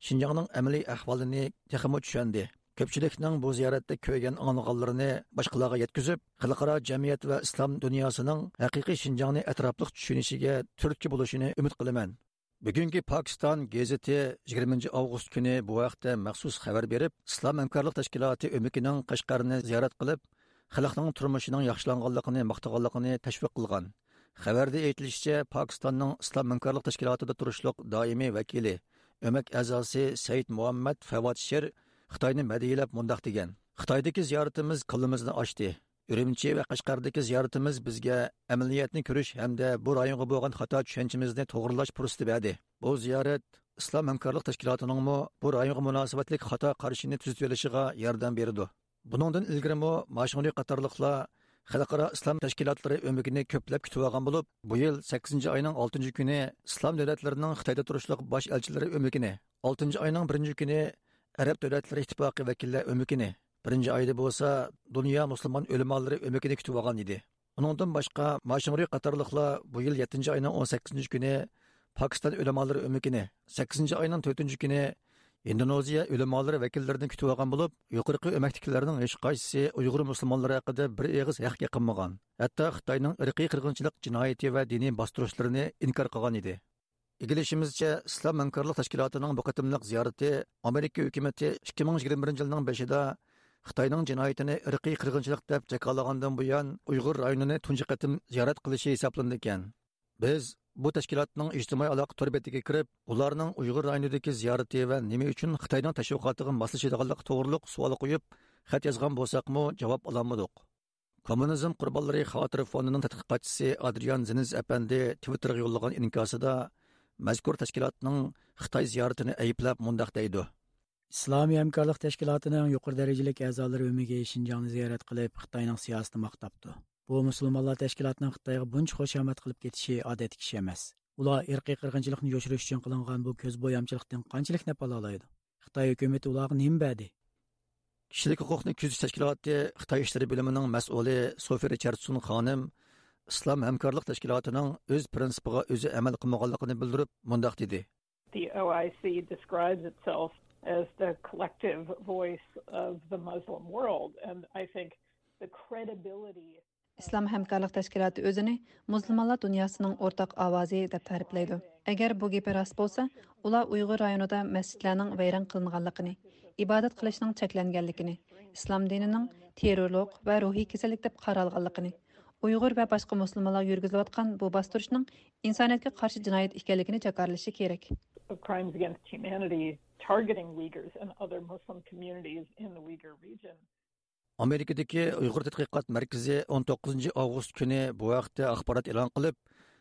شىنجاڭنىڭ ئەمەلىي ئەھۋالىنى تېخىمۇ چۈشەندى. كۆپچىلىكنىڭ بۇ زىيارەتتە كۆرگەن ئاڭلىغانلىرىنى باشقىلارغا يەتكۈزۈپ، خەلقئارا جەمئىيەت ۋە ئىسلام دۇنياسىنىڭ ھەقىقىي شىنجاڭنى ئەتراپلىق چۈشىنىشىگە تۈرتكە بولۇشىنى ئۈمىد قىلىمەن. بۈگۈنكى پاكىستان گېزىتى يىگىرمىنچى ئاۋغۇست كۈنى بۇ ھەقتە مەخسۇس خەۋەر بېرىپ، ئىسلام ھەمكارلىق تەشكىلاتى ئۆمىكىنىڭ قەشقەرنى زىيارەت قىلىپ، خەلقنىڭ تۇرمۇشىنىڭ ياخشىلانغانلىقىنى ماختىغانلىقىنى تەشۋىق قىلغان. خەۋەردە ئېيتىلىشىچە، پاكىستاننىڭ ئىسلام ھەمكارلىق تەشكىلاتىدا تۇرۇشلۇق دائىمىي ۋەكىلى، ئۆمەك ئەزاسى سەيىد مۇھەممەد فەۋاد شېر خىتاينى مەدھىيەلەپ مۇنداق دېگەن: «خىتايدىكى زىيارىتىمىز كاللىمىزنى ئاچتى. ئۈرۈمچى ۋە قەشقەردىكى زىيارىتىمىز بىزگە ئەمەلىيەتنى كۆرۈش ھەمدە بۇ رايونغا بولغان خاتا چۈشەنچىمىزنى توغرىلاش پۇرسىتى بەردى. بۇ زىيارەت ئىسلام ھەمكارلىق تەشكىلاتىنىڭمۇ بۇ رايونغا مۇناسىۋەتلىك خاتا قارىشىنى تۈزىتىۋېلىشىغا ياردەم بېرىدۇ.» بۇنىڭدىن ئىلگىرىمۇ ما شۇڭرى قاتارلىقلار خەلقئارا ئىسلام تەشكىلاتلىرى ئۆمىكىنى كۆپلەپ كۈتۈۋالغان بولۇپ، بۇ يىل سەككىزىنچى ئاينىڭ ئالتىنچى كۈنى ئىسلام دۆلەتلىرىنىڭ خىتايدا تۇرۇشلۇق باش ئەلچىلىرى ئۆمىكىنى، ئالتىنچى ئاينىڭ بىرىنچى كۈنى ئەرەب دۆلەتلىرى ئىتتىپاقى ۋەكىللەر ئۆمىكىنى، بىرىنچى ئايدا بولسا دۇنيا مۇسۇلمان ئۆلىمالىرى ئۆمىكىنى كۈتۈۋالغان ئىدى. ئۇنىڭدىن باشقا، ما شۇڭرى قاتارلىقلار بۇ يىل يەتتىنچى ئاينىڭ ئون سەككىزىنچى كۈنى پاكىستان ئۆلىمالىرى ئۆمىكىنى، سەككىزىنچى ئاينىڭ تۆتىنچى كۈنى ھىندونېزىيە ئۆلىمالىرى ۋەكىللىرىنى كۈتۈۋالغان بولۇپ، يۇقىرىقى ئۆمەكتىكىلەرنىڭ ھېچقايسىسى ئۇيغۇر مۇسۇلمانلىرى ھەققىدە بىر ئېغىز ھەق يېقىنمىغان. ھەتتا خىتاينىڭ ئىرقىي قىرغىنچىلىق جىنايىتى ۋە دىنىي باستۇرۇشلىرىنى ئىنكار قىلغان ئىدى. ئىگىلىشىمىزچە، ئىسلام ھەمكارلىق تەشكىلاتىنىڭ بۇ قېتىملىق زىيارىتى ئامېرىكا ھۆكۈمىتى ئىككى مىڭ يىگىرمە بىرىنچى يىلنىڭ بېشىدا خىتاينىڭ جىنايىتىنى ئىرقىي قىرغىنچىلىق دەپ جاكارلىغاندىن بۇيان، ئۇيغۇر رايونىنى تۇنجى قېتىم زىيارەت قىلىشى ھېسابلىنىدىكەن. بىز بۇ تەشكىلاتنىڭ ئىجتىمائىي ئالاقە تور بېتىگە كىرىپ، ئۇلارنىڭ ئۇيغۇر رايونىدىكى زىيارىتى ۋە نېمە ئۈچۈن خىتاينىڭ تەشۋىقاتىغا ماسلىشىدىغانلىقى توغرۇلۇق سوئال قويۇپ، خەت يازغان بولساقمۇ، جاۋاب ئالالمىدۇق. كوممۇنىزم قۇربانلىرى خاتىرە فوندىنىڭ تەتقىقاتچىسى ئادرىيان زېنز ئەپەندى تىۋىتتېرغا يوللىغان ئىنكاسىدا مەزكۇر تەشكىلاتنىڭ خىتاي زىيارىتىنى ئەيىبلەپ مۇنداق دەيدۇ: ئىسلامىي ھەمكارلىق تەشكىلاتىنىڭ يۇقىرى دەرىجىلىك ئەزالىرى ئۆمىكى شىنجاڭنى زىيارەت قىلىپ، خىتاينىڭ سىياسىتىنى ماختاپتۇ. بۇ مۇسۇلمانلار تەشكىلاتىنىڭ خىتايغا بۇنچە خۇشامەت قىلىپ كېتىشى ئادەتتىكى ئىش ئەمەس. ئۇلار ئىرقىي قىرغىنچىلىقنى يوشۇرۇش ئۈچۈن قىلىنغان بۇ كۆز بويامچىلىقتىن قانچىلىك نەپ ئالالايدۇ؟ خىتاي ھۆكۈمىتى ئۇلارغا نېمە بەردى؟ كىشىلىك ھوقۇقنى كۆزىتىش تەشكىلاتى خىتاي ئىشلىرى بۆلۈمىنىڭ مەسئۇلى سوفى رىچاردسون خانىم ئىسلام ھەمكارلىق تەشكىلاتىنىڭ ئۆز پىرىنسىپىغا ئۆزى ئەمەل قىلمىغانلىقىنى بىلدۈرۈپ، مۇنداق دېدى. The O I C describes itself as the collective voice of the Muslim world, and I think the credibility ئىسلام ھەمكارلىق تەشكىلاتى ئۆزىنى مۇسۇلمانلار دۇنياسىنىڭ ئورتاق ئاۋازى دەپ تەرىپلەيدۇ. ئەگەر بۇ گېپى راست بولسا، ئۇلار ئۇيغۇر رايونىدا مەسچىتلەرنىڭ ۋەيران قىلىنغانلىقىنى، ئىبادەت قىلىشنىڭ چەكلەنگەنلىكىنى، ئىسلام دىنىنىڭ تېررورلۇق ۋە روھىي كېسەللىك دەپ قارالغانلىقىنى، ئۇيغۇر ۋە باشقا مۇسۇلمانلارغا يۈرگۈزۈلۈۋاتقان بۇ باستۇرۇشنىڭ ئىنسانىيەتكە قارشى جىنايەت ئىكەنلىكىنى جاكارلىشى كېرەك. Of crimes against humanity targeting Uyghurs and other Muslim communities in the Uyghur region. ئامېرىكىدىكى ئۇيغۇر تەتقىقات مەركىزى ئون توققۇزىنچى ئاۋغۇست كۈنى بۇ ھەقتە ئاخبارات ئېلان قىلىپ،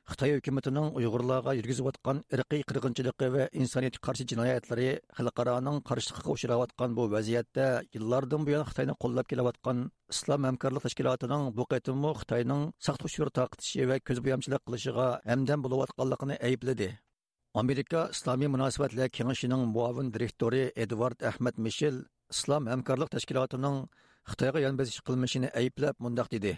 خىتاي ھۆكۈمىتىنىڭ ئۇيغۇرلارغا يۈرگۈزۈۋاتقان ئىرقىي قىرغىنچىلىقى ۋە ئىنسانىيەتكە قارشى جىنايەتلىرى خەلقئارانىڭ قارشىلىقىغا ئۇچراۋاتقان بۇ ۋەزىيەتتە، يىللاردىن بۇيان خىتاينى قوللاپ كېلىۋاتقان ئىسلام ھەمكارلىق تەشكىلاتىنىڭ بۇ قېتىممۇ خىتاينىڭ ساختا ئۇچۇر تارقىتىشى ۋە كۆز بويامچىلىق قىلىشىغا ھەمدەم بولۇۋاتقانلىقىنى ئەيىبلىدى. ئامېرىكا ئىسلامىي مۇناسىۋەتلەر كېڭىشىنىڭ مۇئاۋىن دىرېكتورى ئېدۋارد ئەھمەد مىشېل ئىسلام ھەمكارلىق تەشكىلاتىنىڭ خىتايغا يان بېسىش قىلمىشىنى ئەيىبلەپ مۇنداق دېدى.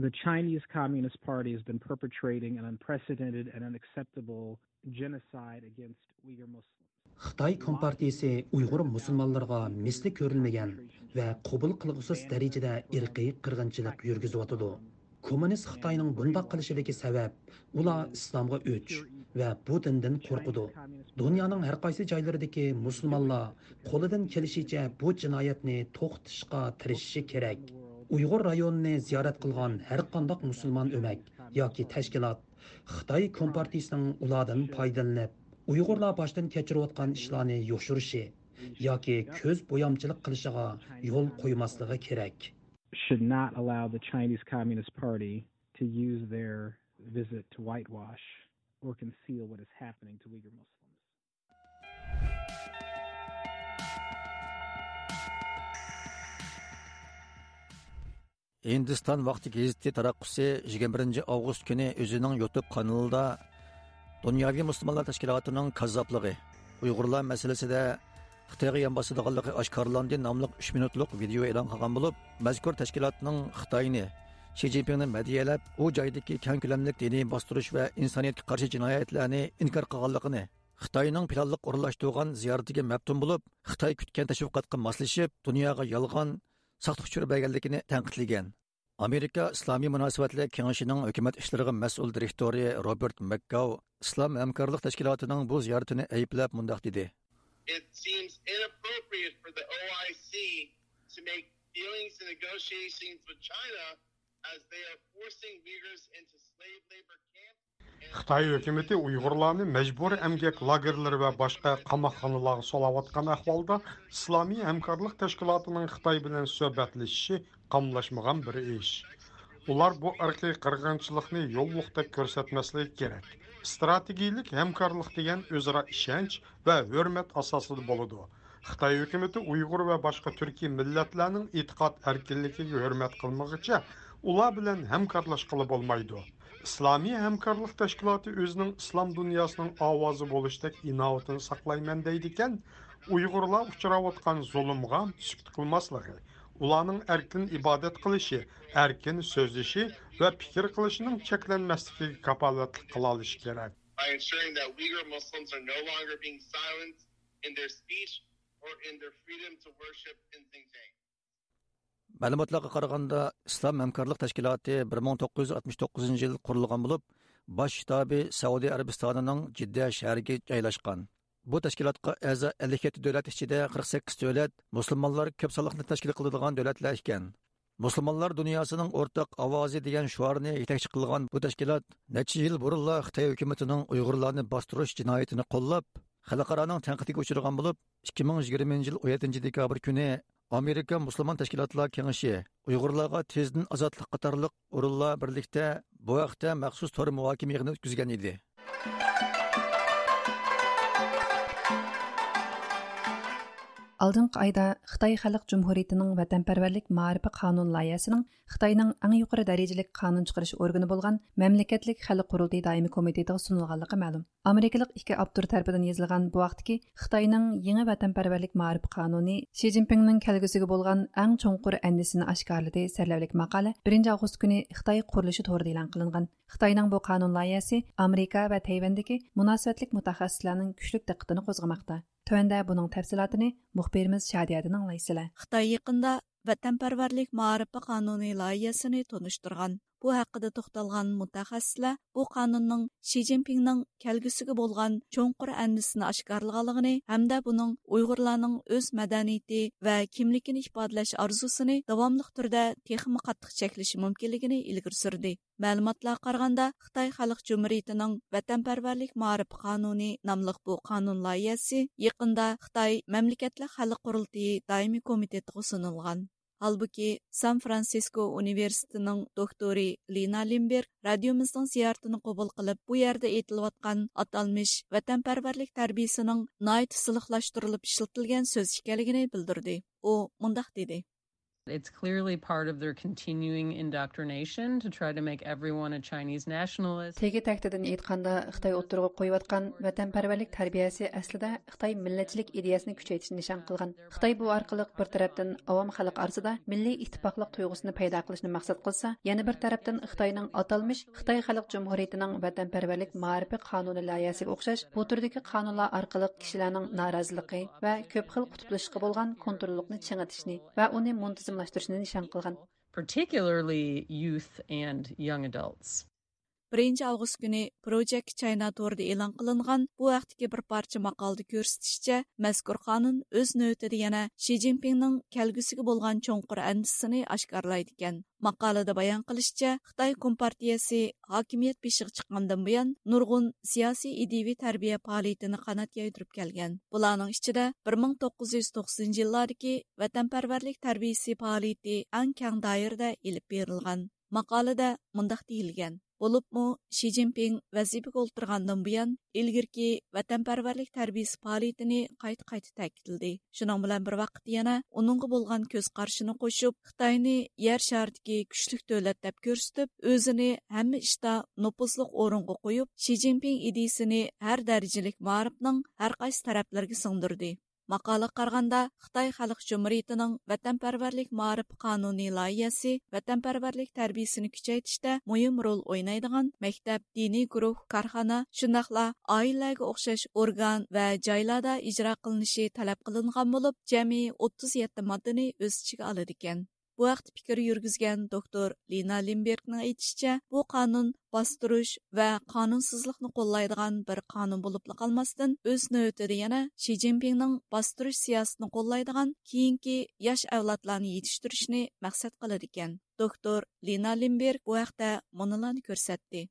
The Chinese Communist Party has been perpetrating an unprecedented and unacceptable genocide against Uyghur Muslims. خىتاي كومپارتىيىسى ئۇيغۇر مۇسۇلمانلىرىغا مىسلى كۆرۈلمىگەن ۋە قوبۇل قىلغۇسىز دەرىجىدە ئىرقىي قىرغىنچىلىق يۈرگۈزۈۋاتىدۇ. كوممۇنىست خىتاينىڭ بۇنداق قىلىشىدىكى سەۋەب، ئۇلار ئىسلامغا ئۆچ ۋە بۇ دىندىن قورقىدۇ. دۇنيانىڭ ھەر قايسى جايلىرىدىكى مۇسۇلمانلار قولىدىن كېلىشىچە بۇ جىنايەتنى توختىتىشقا تىرىشىشى كېرەك. ئۇيغۇر رايونىنى زىيارەت قىلغان ھەر قانداق مۇسۇلمان ئۆمەك ياكى تەشكىلات خىتاي كومپارتىيىسىنىڭ ئۇلاردىن پايدىلىنىپ، ئۇيغۇرلار باشتىن كەچۈرۈۋاتقان ئىشلارنى يوشۇرۇشى ياكى كۆز بويامچىلىق قىلىشىغا يول قويماسلىقى كېرەك. Should not allow the Chinese Communist Party to use their visit to whitewash or conceal what is happening to Uyghur Muslims. ھىندىستان ۋاقتى گېزىتى تاراتقۇسى يىگىرمە بىرىنچى ئاۋغۇست كۈنى ئۆزىنىڭ يۇتۇب قانىلىدا دۇنياۋى مۇسۇلمانلار تەشكىلاتىنىڭ كاززاپلىقى، ئۇيغۇرلار مەسىلىسىدە خىتايغا يان باسىدىغانلىقى ئاشكارىلاندى ناملىق ئۈچ مىنۇتلۇق ۋىدېئو ئېلان قىلغان بولۇپ، مەزكۇر تەشكىلاتنىڭ خىتاينى، شى جىنپىڭنى مەدھىيەلەپ، ئۇ جايدىكى كەڭ كۆلەملىك دىنىي باستۇرۇش ۋە ئىنسانىيەتكە قارشى جىنايەتلەرنى ئىنكار قىلغانلىقىنى، خىتاينىڭ پىلانلىق ئورۇنلاشتۇرغان زىيارىتىگە مەپتۇن بولۇپ، خىتاي كۈتكەن تەشۋىقاتقا ماسلىشىپ، دۇنياغا يالغان، ساختا ئۇچۇر بەرگەنلىكىنى تەنقىدلىگەن. ئامېرىكا ئىسلامىي مۇناسىۋەتلەر كېڭىشىنىڭ ھۆكۈمەت ئىشلىرىغا مەسئۇل دىرېكتورى روبېرت مەكگاۋ ئىسلام ھەمكارلىق تەشكىلاتىنىڭ بۇ زىيارىتىنى ئەيىبلەپ مۇنداق دېدى. It seems inappropriate for the O I C to make dealings and negotiations with China as they are forcing Uyghurs into slave labor camps. خىتاي ھۆكۈمىتى ئۇيغۇرلارنى مەجبۇرىي ئەمگەك لاگېرلىرى ۋە باشقا قاماقخانىلارغا سولاۋاتقان ئەھۋالدا، ئىسلامىي ھەمكارلىق تەشكىلاتىنىڭ خىتاي بىلەن سۆھبەتلىشىشى قاملاشمىغان بىر ئىش. ئۇلار بۇ ئىرقىي قىرغىنچىلىقنى يوللۇقتەك كۆرسەتمەسلىكى كېرەك. ئىستراتېگىيىلىك ھەمكارلىق دېگەن ئۆزئارا ئىشەنچ ۋە ھۆرمەت ئاساسىدا بولىدۇ. خىتاي ھۆكۈمىتى ئۇيغۇر ۋە باشقا تۈركىي مىللەتلەرنىڭ ئېتىقاد ئەركىنلىكىگە ھۆرمەت قىلمىغىچە، ئۇلار بىلەن ھەمكارلاشقىلى بولمايدۇ. ئىسلامىي ھەمكارلىق تەشكىلاتى ئۆزىنىڭ ئىسلام دۇنياسىنىڭ ئاۋازى بولۇشتەك ئىناۋىتىنى ساقلايمەن دەيدىكەن، ئۇيغۇرلار ئۇچراۋاتقان زۇلۇمغا سۈكۈت قىلماسلىقى، ئۇلارنىڭ ئەركىن ئىبادەت قىلىشى، ئەركىن سۆزلىشى ۋە پىكىر قىلىشىنىڭ چەكلەنمەسلىكىگە كاپالەتلىك قىلالىشى كېرەك. By ensuring that Uyghur Muslims are no longer being silenced in their speech or in their freedom to worship in Xinjiang. مەلۇماتلارغا قارىغاندا، ئىسلام ھەمكارلىق تەشكىلاتى بىر مىڭ توققۇز يۈز ئاتمىش توققۇزىنچى يىل قۇرۇلغان بولۇپ، باش شتابى سەئۇدى ئەرەبىستانىنىڭ جىددە شەھىرىگە جايلاشقان. بۇ تەشكىلاتقا ئەزا ئەللىك يەتتە دۆلەت ئىچىدە قىرىق سەككىز دۆلەت مۇسۇلمانلار كۆپ سانلىقنى تەشكىل قىلىدىغان دۆلەتلەر ئىكەن. مۇسۇلمانلار دۇنياسىنىڭ ئورتاق ئاۋازى دېگەن شوئارنى يېتەكچى قىلغان بۇ تەشكىلات نەچچە يىل بۇرۇنلا خىتاي ھۆكۈمىتىنىڭ ئۇيغۇرلارنى باستۇرۇش جىنايىتىنى قوللاپ، خەلقئارانىڭ تەنقىدىگە ئۇچرىغان بولۇپ، ئىككى مىڭ يىگىرمىنچى يىل ئون يەتتىنچى دېكابىر كۈنى ئامېرىكا مۇسۇلمان تەشكىلاتلار كېڭىشى ئۇيغۇرلارغا تېزدىن ئازادلىق قاتارلىق ئورۇنلار بىرلىكتە بۇ ھەقتە مەخسۇس تور مۇھاكىمە يىغىنى ئۆتكۈزگەن ئىدى. ئالدىنقى ئايدا خىتاي خەلق جۇمھۇرىيىتىنىڭ ۋەتەنپەرۋەرلىك مائارىپى قانۇن لايىھەسىنىڭ خىتاينىڭ ئەڭ يۇقىرى دەرىجىلىك قانۇن چىقىرىش ئورگىنى بولغان مەملىكەتلىك خەلق قۇرۇلتىيى دائىمىي كومىتېتىغا سۇنۇلغانلىقى مەلۇم. ئامېرىكىلىق ئىككى ئاپتور تەرىپىدىن يېزىلغان بۇ ھەقتىكى خىتاينىڭ يېڭى ۋەتەنپەرۋەرلىك مائارىپ قانۇنى شى جىنپىڭنىڭ كەلگۈسىگە بولغان ئەڭ چوڭقۇر ئەندىشىسىنى ئاشكارىلىدى سەرلەۋھىلىك ماقالە بىرىنچى ئاۋغۇست كۈنى خىتاي قۇرۇلۇشى تورىدا ئېلان قىلىنغان. خىتاينىڭ بۇ قانۇن لايىھەسى ئامېرىكا ۋە تەيۋەندىكى مۇناسىۋەتلىك مۇتەخەسسىسلەرنىڭ كۈچلۈك دىققىتىنى قوزغىماقتا. تۆۋەندە بۇنىڭ تەپسىلاتىنى مۇخبىرىمىز شادىيەدىن ئاڭلايسىلەر. خىتاي يېقىندا ۋەتەنپەرۋەرلىك مائارىپى قانۇنى لايىھەسىنى تونۇشتۇرغان. بۇ ھەققىدە توختالغان مۇتەخەسسىسلەر بۇ قانۇننىڭ شى جىنپىڭنىڭ كەلگۈسىگە بولغان چوڭقۇر ئەندىشىسىنى ئاشكارىلىغانلىقىنى ھەمدە بۇنىڭ ئۇيغۇرلارنىڭ ئۆز مەدەنىيىتى ۋە كىملىكىنى ئىپادىلەش ئارزۇسىنى داۋاملىق تۈردە تېخىمۇ قاتتىق چەكلىشى مۇمكىنلىكىنى ئىلگىرى سۈردى. مەلۇماتلارغا قارىغاندا، خىتاي خەلق جۇمھۇرىيىتىنىڭ ۋەتەنپەرۋەرلىك مائارىپى قانۇنى ناملىق بۇ قانۇن لايىھەسى يېقىندا خىتاي مەملىكەتلىك خەلق قۇرۇلتىيى دائىمىي كومىتېتىغا سۇنۇلغان. ھالبۇكى، سان فرانسىسكو ئۇنىۋېرسىتېتىنىڭ دوكتورى لىنا لىمبېرگ رادىيومىزنىڭ زىيارىتىنى قوبۇل قىلىپ، بۇ يەردە ئېيتىلىۋاتقان ئاتالمىش ۋەتەنپەرۋەرلىك تەربىيىسىنىڭ ناھايىتى سىلىقلاشتۇرۇلۇپ ئىشلىتىلگەن سۆز ئىكەنلىكىنى بىلدۈردى. ئۇ مۇنداق دېدى. It's clearly part of their continuing indoctrination to try to make everyone a Chinese nationalist. تېگى تەكتىدىن ئېيتقاندا، خىتاي ئوتتۇرىغا قويۇۋاتقان ۋەتەنپەرۋەرلىك تەربىيەسى ئەسلىدە خىتاي مىللەتچىلىك ئىدىيەسىنى كۈچەيتىشنى نىشان قىلغان. خىتاي بۇ ئارقىلىق بىر تەرەپتىن ئاۋام خەلق ئارىسىدا مىللىي ئىتتىپاقلىق تۇيغۇسىنى پەيدا قىلىشنى مەقسەت قىلسا، يەنە بىر تەرەپتىن خىتاينىڭ ئاتالمىش خىتاي خەلق جۇمھۇرىيىتىنىڭ ۋەتەنپەرۋەرلىك مائارىپى قانۇنى لايىھەسىگە ئوخشاش بۇ تۈردىكى قانۇنلار ئارقىلىق كىشىلەرنىڭ نارازىلىقى ۋە كۆپ خىل قۇتۇپلىشىشقا بولغان كونتروللۇقنى چىڭىتىشنى ۋە ئۇنى مۇنتىزىملاشتۇرۇشنى نىشان قىلغان. Particularly youth and young adults. بىرىنچى ئاۋغۇست كۈنى پروجېكت چاينا تورىدا ئېلان قىلىنغان بۇ ھەقتىكى بىر پارچە ماقالىدە كۆرسىتىشىچە، مەزكۇر قانۇن ئۆز نۆۋىتىدە يەنە شى جىنپىڭنىڭ كەلگۈسىگە بولغان چوڭقۇر ئەندىشىسىنى ئاشكارىلايدىكەن. ماقالىدە بايان قىلىشىچە، خىتاي كومپارتىيەسى ھاكىمىيەت بېشىغا چىققاندىن بۇيان، نۇرغۇن سىياسىي ئىدىيىۋى تەربىيە پائالىيىتىنى قانات يايدۇرۇپ كەلگەن. بۇلارنىڭ ئىچىدە بىر مىڭ توققۇز يۈز توقسىنىنچى يىللاردىكى ۋەتەنپەرۋەرلىك تەربىيىسى پائالىيىتى ئەڭ كەڭ دائىرىدە ئېلىپ بېرىلغان. ماقالىدە مۇنداق دېيىلگەن: بولۇپمۇ شى جىنپىڭ ۋەزىپىگە ئولتۇرغاندىن بۇيان، ئىلگىرىكى ۋەتەنپەرۋەرلىك تەربىيىسى پائالىيىتىنى قايتا-قايتا تەكىتلىدى. شۇنىڭ بىلەن بىر ۋاقىتتا يەنە ئۇنىڭغا بولغان كۆز قارىشىنى قوشۇپ، خىتاينى يەر شارىدىكى كۈچلۈك دۆلەت دەپ كۆرسىتىپ، ئۆزىنى ھەممە ئىشتا نوپۇزلۇق ئورۇنغا قويۇپ، شى جىنپىڭ ئىدىيىسىنى ھەر دەرىجىلىك مائارىپنىڭ ھەر قايسى تەرەپلىرىگە سىڭدۈردى. ماقالىگە قارىغاندا، خىتاي خەلق جۇمھۇرىيىتىنىڭ ۋەتەنپەرۋەرلىك مائارىپ قانۇنى لايىھەسى ۋەتەنپەرۋەرلىك تەربىيىسىنى كۈچەيتىشتە مۇھىم رول ئوينايدىغان مەكتەپ، دىنىي گۇرۇھ، كارخانا، شۇنداقلا ئائىلىلەرگە ئوخشاش ئورگان ۋە جايلاردا ئىجرا قىلىنىشى تەلەپ قىلىنغان بولۇپ، جەمئىي ئوتتۇز يەتتە ماددىنى ئۆز ئىچىگە ئالىدىكەن. بۇ ھەقتە پىكىر يۈرگۈزگەن دوكتور لىنا لىمبېرگنىڭ ئېيتىشىچە، بۇ قانۇن باستۇرۇش ۋە قانۇنسىزلىقنى قوللايدىغان بىر قانۇن بولۇپلا قالماستىن، ئۆز نۆۋىتىدە يەنە شى جىنپىڭنىڭ باستۇرۇش سىياسىتىنى قوللايدىغان كېيىنكى ياش ئەۋلادلارنى يېتىشتۈرۈشنى مەقسەت قىلىدىكەن. دوكتور لىنا لىمبېرگ بۇ ھەقتە مۇنۇلارنى كۆرسەتتى.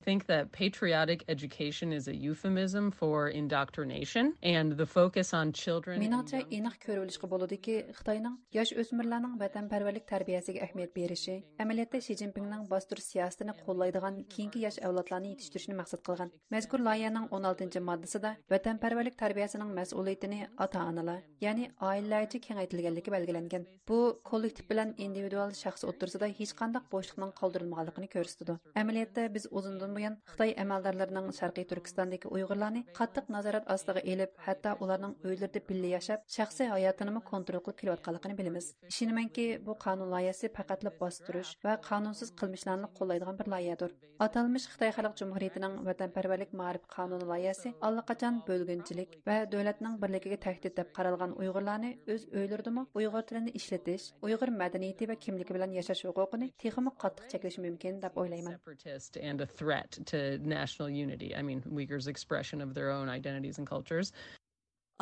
think that patriotic education is a euphemism for indoctrination and the focus on children and مېنىڭچە، young ئېنىق كۆرۈۋېلىشقا بولىدۇكى، خىتاينىڭ ياش ئۆسمۈرلەرنىڭ ۋەتەنپەرۋەرلىك تەربىيەسىگە ئەھمىيەت بېرىشى، ئەمەلىيەتتە شى جىنپىڭنىڭ باستۇرۇش سىياسىتىنى قوللايدىغان كېيىنكى ياش ئەۋلادلارنى يېتىشتۈرۈشنى مەقسەت قىلغان. مەزكۇر لايىھەنىڭ ئون ئالتىنچى ماددىسىدا ۋەتەنپەرۋەرلىك تەربىيەسىنىڭ مەسئۇلىيىتىنى ئاتا-ئانىلار، يەنى ئائىلىلەرگىچە كېڭەيتىلگەنلىكى بەلگىلەنگەن. بۇ كوللېكتىپ بىلەن ئىندىۋىدۇئال شەخس ئوتتۇرىسىدا ھېچقانداق بوشلۇقنىڭ قالدۇرۇلمىغانلىقىنى كۆرسىتىدۇ. ئەمەلىيەتتە، بىز ئۇزۇندىن بۇيان خىتاي ئەمەلدارلىرىنىڭ شەرقىي تۈركىستاندىكى ئۇيغۇرلارنى قاتتىق نازارەت ئاستىغا ئېلىپ، ھەتتا ئۇلارنىڭ ئۆيلىرىدە بىللە ياشاپ، شەخسىي ھاياتىنىمۇ كونترول قىلىپ كېلىۋاتقانلىقىنى بىلىمىز. ئىشىنىمەنكى، بۇ قانۇن لايىھەسى پەقەتلا باستۇرۇش ۋە قانۇنسىز قىلمىشلارنى قوللايدىغان بىر لايىھەدۇر. ئاتالمىش خىتاي خەلق جۇمھۇرىيىتىنىڭ ۋەتەنپەرۋەرلىك مائارىپ قانۇنى لايىھەسى ئاللىقاچان بۆلگۈنچىلىك ۋە دۆلەتنىڭ بىرلىكىگە تەھدىت دەپ قارالغان ئۇيغۇرلارنى ئۆز ئۆيلىرىدىمۇ ئۇيغۇر تىلىنى ئىشلىتىش، ئۇيغۇر مەدەنىيىتى ۋە كىملىكى بىلەن ياشاش ھوقۇقىنى تېخىمۇ قاتتىق چەكلىشى مۇمكىن دەپ ئويلايمەن. Separatist and a threat to national unity. I mean, Uyghurs' expression of their own identities and cultures.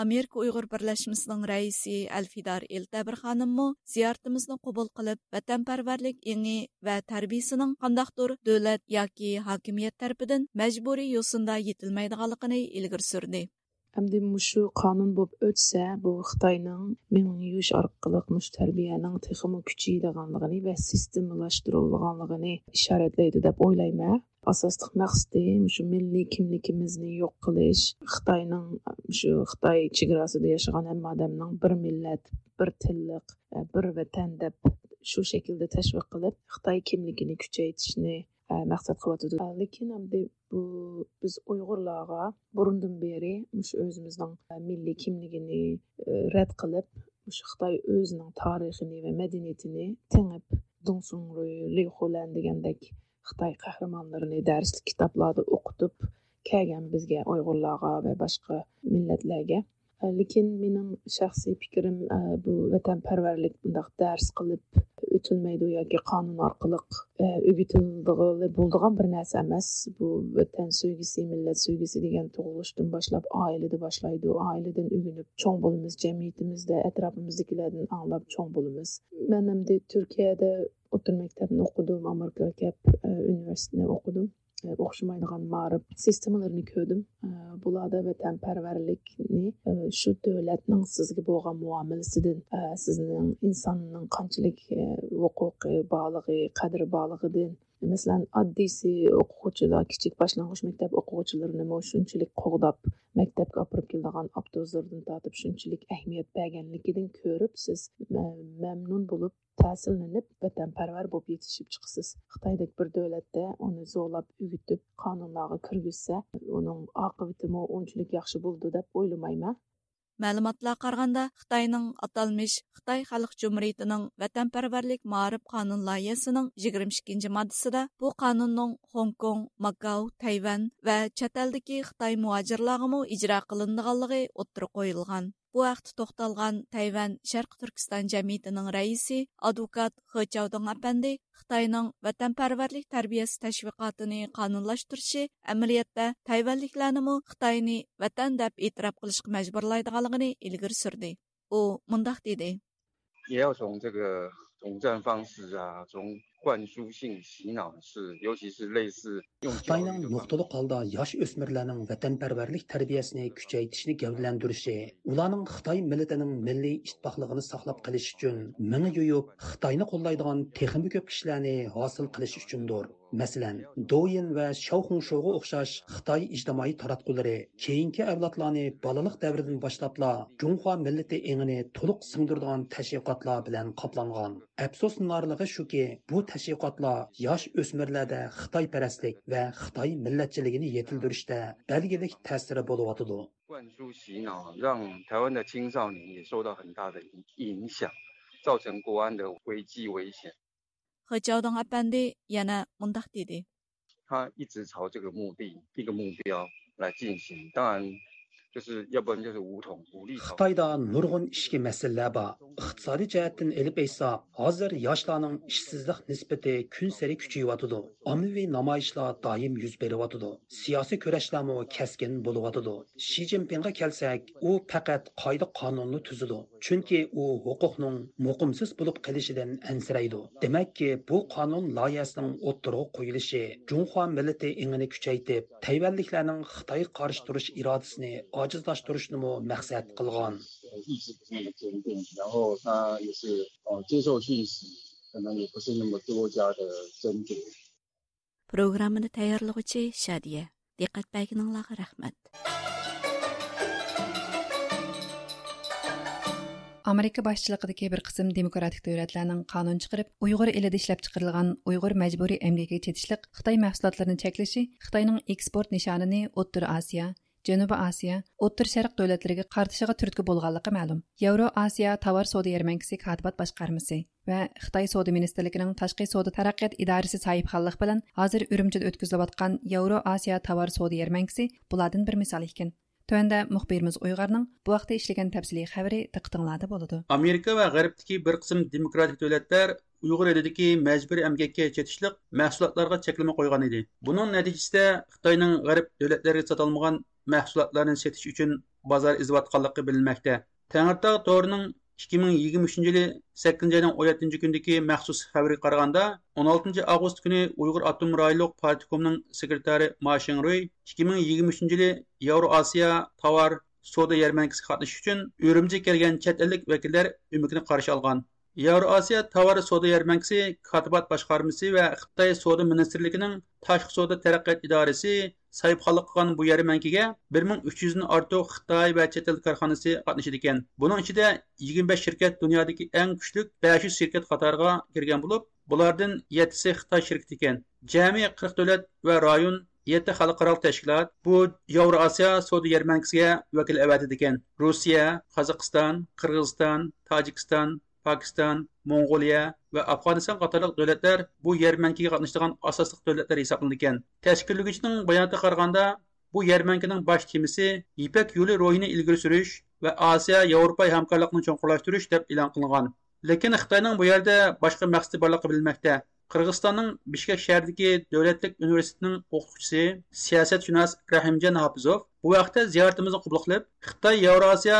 ئامېرىكا ئۇيغۇر بىرلەشمىسىنىڭ رەئىسى ئەلفىدار ئېلتەبىر خانىممۇ زىيارىتىمىزنى قوبۇل قىلىپ، ۋەتەنپەرۋەرلىك ئېڭى ۋە تەربىيىسىنىڭ قانداقتۇر دۆلەت ياكى ھاكىمىيەت تەرىپىدىن مەجبۇرىي يوسۇندا يېتىلمەيدىغانلىقىنى ئىلگىرى سۈردى. ئەمدى مۇشۇ قانۇن بولۇپ ئۆتسە، بۇ خىتاينىڭ مېڭە يۇيۇش ئارقىلىق مۇشۇ تەربىيەنىڭ تېخىمۇ كۈچىيىدىغانلىقىنى ۋە سىستېمىلاشتۇرۇلىدىغانلىقىنى ئىشارەتلەيدۇ دەپ ئويلايمەن. ئاساسلىق مەقسىتى مۇشۇ مىللىي كىملىكىمىزنى يوق قىلىش، خىتاينىڭ، شۇ خىتاي چېگراسىدا ياشىغان ھەممە ئادەمنىڭ بىر مىللەت، بىر تىللىق، بىر ۋەتەن دەپ شۇ شەكىلدە تەشۋىق قىلىپ، خىتاي كىملىكىنى كۈچەيتىشنى، مەقسەت قىلىۋاتىدۇ. لېكىن ئەمدى بۇ بىز ئۇيغۇرلارغا بۇرۇندىن بېرى مۇشۇ ئۆزىمىزنىڭ مىللىي كىملىكىنى رەت قىلىپ، مۇشۇ خىتاي ئۆزىنىڭ تارىخىنى ۋە مەدەنىيىتىنى تېڭىپ، دۇڭسۇڭرۇي، لىخۇلەن دېگەندەك خىتاي قەھرىمانلىرىنى دەرسلىك كىتابلاردا ئوقۇتۇپ كەلگەن بىزگە، ئۇيغۇرلارغا ۋە باشقا مىللەتلەرگە. لېكىن مېنىڭ شەخسىي پىكرىم، بۇ ۋەتەنپەرۋەرلىك بۇنداق دەرس قىلىپ ئۆتۈلمەيدۇ ياكى قانۇن ئارقىلىق ئۆگىتىلىدىغىلى بولىدىغان بىر نەرسە ئەمەس. بۇ ۋەتەن سۆيگۈسى، مىللەت سۆيگۈسى دېگەن تۇغۇلۇشتىن باشلاپ ئائىلىدە باشلايدۇ. ئائىلىدىن ئۆگىنىپ چوڭ بولىمىز، جەمئىيىتىمىزدە ئەتراپىمىزدىكىلەردىن ئاڭلاپ چوڭ بولىمىز. مەن ئەمدى تۈركىيەدە ئوتتۇرا مەكتەپنى ئوقۇدۇم، ئامېرىكىغا كەپ، ئە، ئۇنىۋېرسىتېتنى ئوقۇدۇم. ئە، ئوخشىمايدىغان مائارىپ سىستېمىلىرىنى كۆردۈم. ئە، بۇلاردا ۋەتەنپەرۋەرلىكنى، ئە، شۇ دۆلەتنىڭ سىزگە بولغان مۇئامىلىسىدىن، ئە، سىزنىڭ ئىنساننىڭ قانچىلىك، ئە، ھوقۇقى بارلىقى، قەدرى بارلىقىدىن. مەسىلەن، ئاددىيسى ئوقۇغۇچىلار، كىچىك باشلانغۇچ مەكتەپ ئوقۇغۇچىلىرىنىمۇ شۇنچىلىك قوغداپ، مەكتەپكە ئاپىرىپ كېلىدىغان ئاپتوبۇسلاردىن تارتىپ شۇنچىلىك ئەھمىيەت بەرگەنلىكىدىن كۆرۈپ، سىز مە-، مەمنۇن بولۇپ، تەسىرلىنىپ، ۋەتەنپەرۋەر بولۇپ يېتىشىپ چىقىسىز. خىتايدەك بىر دۆلەتتە ئۇنى زورلاپ ئۆگىتىپ، قانۇنلارغا كىرگۈزسە، ئۇنىڭ ئاقىۋىتىمۇ ئۇنچىلىك ياخشى بولىدۇ دەپ ئويلىمايمەن. مەلۇماتلارغا قارىغاندا، خىتاينىڭ ئاتالمىش خىتاي خەلق جۇمھۇرىيىتىنىڭ ۋەتەنپەرۋەرلىك مائارىپ قانۇن لايىھەسىنىڭ يىگىرمە ئىككىنچى ماددىسىدا بۇ قانۇننىڭ خوڭكوڭ، ماكاو، تەيۋەن ۋە چەت ئەلدىكى خىتاي مۇھاجىرلارغىمۇ ئىجرا قىلىنىدىغانلىقى ئوتتۇرىغا قويۇلغان. بۇ ھەقتە توختالغان تەيۋەن شەرقىي تۈركىستان جەمئىيىتىنىڭ رەئىسى، ئادۋوكات خې چاۋدىڭ ئەپەندى خىتاينىڭ ۋەتەنپەرۋەرلىك تەربىيەسى تەشۋىقاتىنى قانۇنلاشتۇرۇشى ئەمەلىيەتتە تەيۋەنلىكلەرنىمۇ خىتاينى ۋەتەن دەپ ئېتىراپ قىلىشقا مەجبۇرلايدىغانلىقىنى ئىلگىرى سۈردى. ئۇ مۇنداق دېدى. 也要从这个统战方式啊，从灌输性洗脑式，尤其是类似用教育 خىتاينىڭ نۇقتىلىق ھالدا ياش ئۆسمۈرلەرنىڭ ۋەتەنپەرۋەرلىك تەربىيەسىنى كۈچەيتىشنى گەۋدىلەندۈرۈشى، ئۇلارنىڭ خىتاي مىللىتىنىڭ مىللىي ئىتتىپاقلىقىنى ساقلاپ قېلىش ئۈچۈن مېڭە يۇيۇپ، خىتاينى قوللايدىغان تېخىمۇ كۆپ كىشىلەرنى ھاسىل قىلىش ئۈچۈندۇر. مەسىلەن، دويىن ۋە شياۋخۇڭشوغا ئوخشاش خىتاي ئىجتىمائىي تاراتقۇلىرى كېيىنكى ئەۋلادلارنى بالىلىق دەۋرىدىن باشلاپلا جۇڭخۇا مىللىتى ئېڭىنى تولۇق سىڭدۈرىدىغان تەشۋىقاتلار بىلەن قاپلانغان. ئەپسۇسلىنارلىقى شۇكى، بۇ تەشۋىقاتلار ياش ئۆسمۈرلەردە خىتايپەرەسلىك ۋە خىتاي مىللەتچىلىكىنى يېتىلدۈرۈشتە بەلگىلىك تەسىرى بولۇۋاتىدۇ. 灌输洗脑，让台湾的青少年也受到很大的影影响，造成国安的危机危险。 خې چاۋدىڭ ئەپەندى يەنە مۇنداق دېدى. 他一直朝这个目的一个目标来进行，当然就是要不然就是无统无立。 خىتايدا نۇرغۇن ئىچكى مەسىلىلەر بار. ئىقتىسادىي جەھەتتىن ئېلىپ ئېيتساق، ھازىر ياشلارنىڭ ئىشسىزلىق نىسبىتى كۈنسېرى كۈچىيىۋاتىدۇ. ئاممىۋى نامايىشلار دائىم يۈز بېرىۋاتىدۇ. سىياسىي كۈرەشلەرمۇ كەسكىن بولۇۋاتىدۇ. شى جىنپىڭغا كەلسەك، ئۇ پەقەت قائىدە-قانۇننى تۈزىدۇ. چۈنكى ئۇ ھوقۇقنىڭ مۇقىمسىز بولۇپ قېلىشىدىن ئەنسىرەيدۇ. دېمەككى، بۇ قانۇن لايىھەسىنىڭ ئوتتۇرىغا قويۇلۇشى جۇڭخۇا مىللىتى ئېڭىنى كۈچەيتىپ، تەيۋەنلىكلەرنىڭ خىتايغا قارشى تۇرۇش ئىرادىسىنى ئاجىزلاشتۇرۇشنىمۇ مەقسەت قىلغان. 意志不是很坚定，然后他也是呃接受讯息，可能也不是那么多加的斟酌。 پروگراممىنى تەييارلىغۇچى شادىيە. دىققەت بەرگىنىڭلارغا رەھمەت. ئامېرىكا باشچىلىقىدىكى بىر قىسىم دېموكراتىك دۆلەتلەرنىڭ قانۇن چىقىرىپ، ئۇيغۇر ئېلىدە ئىشلەپچىقىرىلغان ئۇيغۇر مەجبۇرىي ئەمگىكىگە چېتىشلىق خىتاي مەھسۇلاتلىرىنى چەكلىشى خىتاينىڭ ئېكسپورت نىشانىنى ئوتتۇرا ئاسىيا، جەنۇبىي ئاسىيا، ئوتتۇرا شەرق دۆلەتلىرىگە قارىتىشىغا تۈرتكە بولغانلىقى مەلۇم. ياۋرو ئاسىيا تاۋار سودا يەرمەنكىسى كاتىبات باشقارمىسى ۋە خىتاي سودا مىنىستىرلىكىنىڭ تاشقى سودا تەرەققىيات ئىدارىسى ساھىبخانلىقى بىلەن ھازىر ئۈرۈمچىدە ئۆتكۈزۈلۈۋاتقان ياۋرو ئاسىيا تاۋار سودا يەرمەنكىسى بۇلاردىن بىر مىسال ئىكەن. تۆۋەندە مۇخبىرىمىز ئۇيغۇرنىڭ بۇ ھەقتە ئىشلىگەن تەپسىلىي خەۋىرى دىققىتىڭلاردا بولىدۇ. ئامېرىكا ۋە غەربتىكى بىر قىسىم دېموكراتىك دۆلەتلەر ئۇيغۇر ئېلىدىكى مەجبۇرىي ئەمگەككە چېتىشلىق مەھسۇلاتلارغا چەكلىمە قويغان ئىدى. بۇنىڭ نەتىجىسىدە خىتاينىڭ غەرب دۆلەتلىرىگە ساتالمىغان مەھسۇلاتلارنى سېتىش ئۈچۈن بازار ئېزىۋاتقانلىقى بىلىنمەكتە. تەڭرىتاغ تورىنىڭ ئىككى مىڭ يىگىرمە ئۈچىنچى يىلى سەككىزىنچى ئاينىڭ ئون يەتتىنچى كۈنىدىكى مەخسۇس خەۋىرىگە قارىغاندا، ئون ئالتىنچى ئاۋغۇست كۈنى ئۇيغۇر ئاپتونوم رايونلۇق پارتكومنىڭ سېكرېتارى ما شىڭرۇي ئىككى مىڭ يىگىرمە ئۈچىنچى يىلى ياۋرو ئاسىيا تاۋار سودا يەرمەنكىسىگە قاتنىشىش ئۈچۈن ئۈرۈمچىگە كەلگەن چەت ئەللىك ۋەكىللەر ئۆمىكىنى قارشى ئالغان. ياۋرو ئاسىيا تاۋار سودا يەرمەنكىسى كاتىبات باشقارمىسى ۋە خىتاي سودا مىنىستىرلىكىنىڭ تاشقى سودا تەرەققىيات ئىدارىسى ساھىبخانلىق قىلغان بۇ يەرمەنكىگە بىر مىڭ ئۈچ يۈزدىن ئارتۇق خىتاي ۋە چەت ئەل كارخانىسى قاتنىشىدىكەن. بۇنىڭ ئىچىدە يىگىرمە بەش شىركەت دۇنيادىكى ئەڭ كۈچلۈك بەش يۈز شىركەت قاتارىغا كىرگەن بولۇپ، بۇلاردىن يەتتىسى خىتاي شىركىتى ئىكەن. جەمئىي قىرىق دۆلەت ۋە رايون، يەتتە خەلقئارالىق تەشكىلات بۇ ياۋرو ئاسىيا سودا يەرمەنكىسىگە ۋەكىل ئەۋەتىدىكەن. روسىيە، قازاقىستان، قىرغىزىستان، تاجىكىستان، پاكىستان، موڭغۇلىيە ۋە ئافغانىستان قاتارلىق دۆلەتلەر بۇ يەرمەنكىگە قاتنىشىدىغان ئاساسلىق دۆلەتلەر ھېسابلىنىدىكەن. تەشكىللىگۈچىنىڭ باياناتىغا قارىغاندا، بۇ يەرمەنكىنىڭ باش تېمىسى يىپەك يولى روھىنى ئىلگىرى سۈرۈش ۋە ئاسىيا ياۋروپا ھەمكارلىقىنى چوڭقۇرلاشتۇرۇش دەپ ئېلان قىلىنغان. لېكىن خىتاينىڭ بۇ يەردە باشقا مەقسىتى بارلىقى بىلىنمەكتە. قىرغىزىستاننىڭ بىشكەك شەھىرىدىكى دۆلەتلىك ئۇنىۋېرسىتېتىنىڭ ئوقۇتقۇچىسى، سىياسەتشۇناس رەھىمجان ھاپىزوف بۇ ھەقتە زىيارىتىمىزنى قوبۇل قىلىپ، خىتاي ياۋراسىيا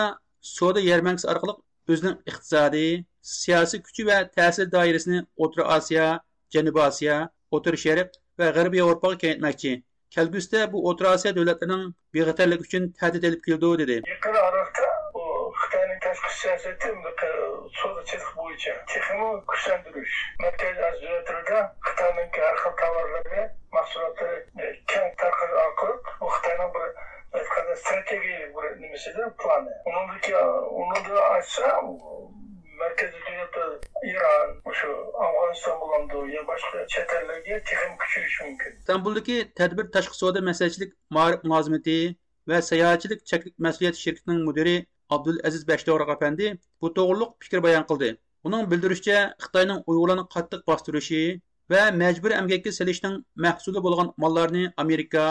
سودا يەرمەنكىسى ئارقىلىق ئۆزىنىڭ ئىقتىسادىي، سىياسىي كۈچى ۋە تەسىر دائىرىسىنى ئوتتۇرا ئاسىيا، جەنۇبىي ئاسىيا، ئوتتۇرا شەرق ۋە غەربىي ياۋروپاغا كېڭەيتمەكچى. كەلگۈسىدە بۇ ئوتتۇرا ئاسىيا دۆلەتلىرىنىڭ بىخەتەرلىكى ئۈچۈن تەھدىت ئېلىپ كېلىدۇ، دېدى. يېقىن ئارىلىقتا بۇ خىتاينىڭ تاشقى سىياسىتى سودا سېتىق بويىچە تېخىمۇ كۈچلەندۈرۈش، مەركەزىي ئاسىيا دۆلەتلىرىدە خىتاينىڭكى ھەر خىل تاۋارلىرى، مەھسۇلاتلىرى كەڭ تارقىتىش ئارقىلىق بۇ خىتاينىڭ بىر ئېيتقاندا ستراتېگىيەلىك بىر نېمىسىدە، پىلانى. ئۇنىڭدىكى، ئۇنىڭدىن ئاشسا، مەركىزىي دۆلەتلەر ئىران، مۇشۇ ئافغانىستان بولامدۇ يا باشقا چەت ئەللەرگە تېخىمۇ كۈچىيىشى مۇمكىن. ئىستانبۇلدىكى تەدبىر تاشقى سودا مەسلىھەتچىلىك مائارىپ مۇلازىمىتى ۋە ساياھەتچىلىك چەكلىك مەسئۇلىيەت شىركىتىنىڭ مۇدىرى ئابدۇلئەزىز بەشتوغراق ئەپەندى بۇ توغرۇلۇق پىكىر بايان قىلدى. ئۇنىڭ بىلدۈرۈشىچە، خىتاينىڭ ئۇيغۇرلارنى قاتتىق باستۇرۇشى ۋە مەجبۇرىي ئەمگەككە سېلىشنىڭ مەھسۇلى بولغان ماللارنى ئامېرىكا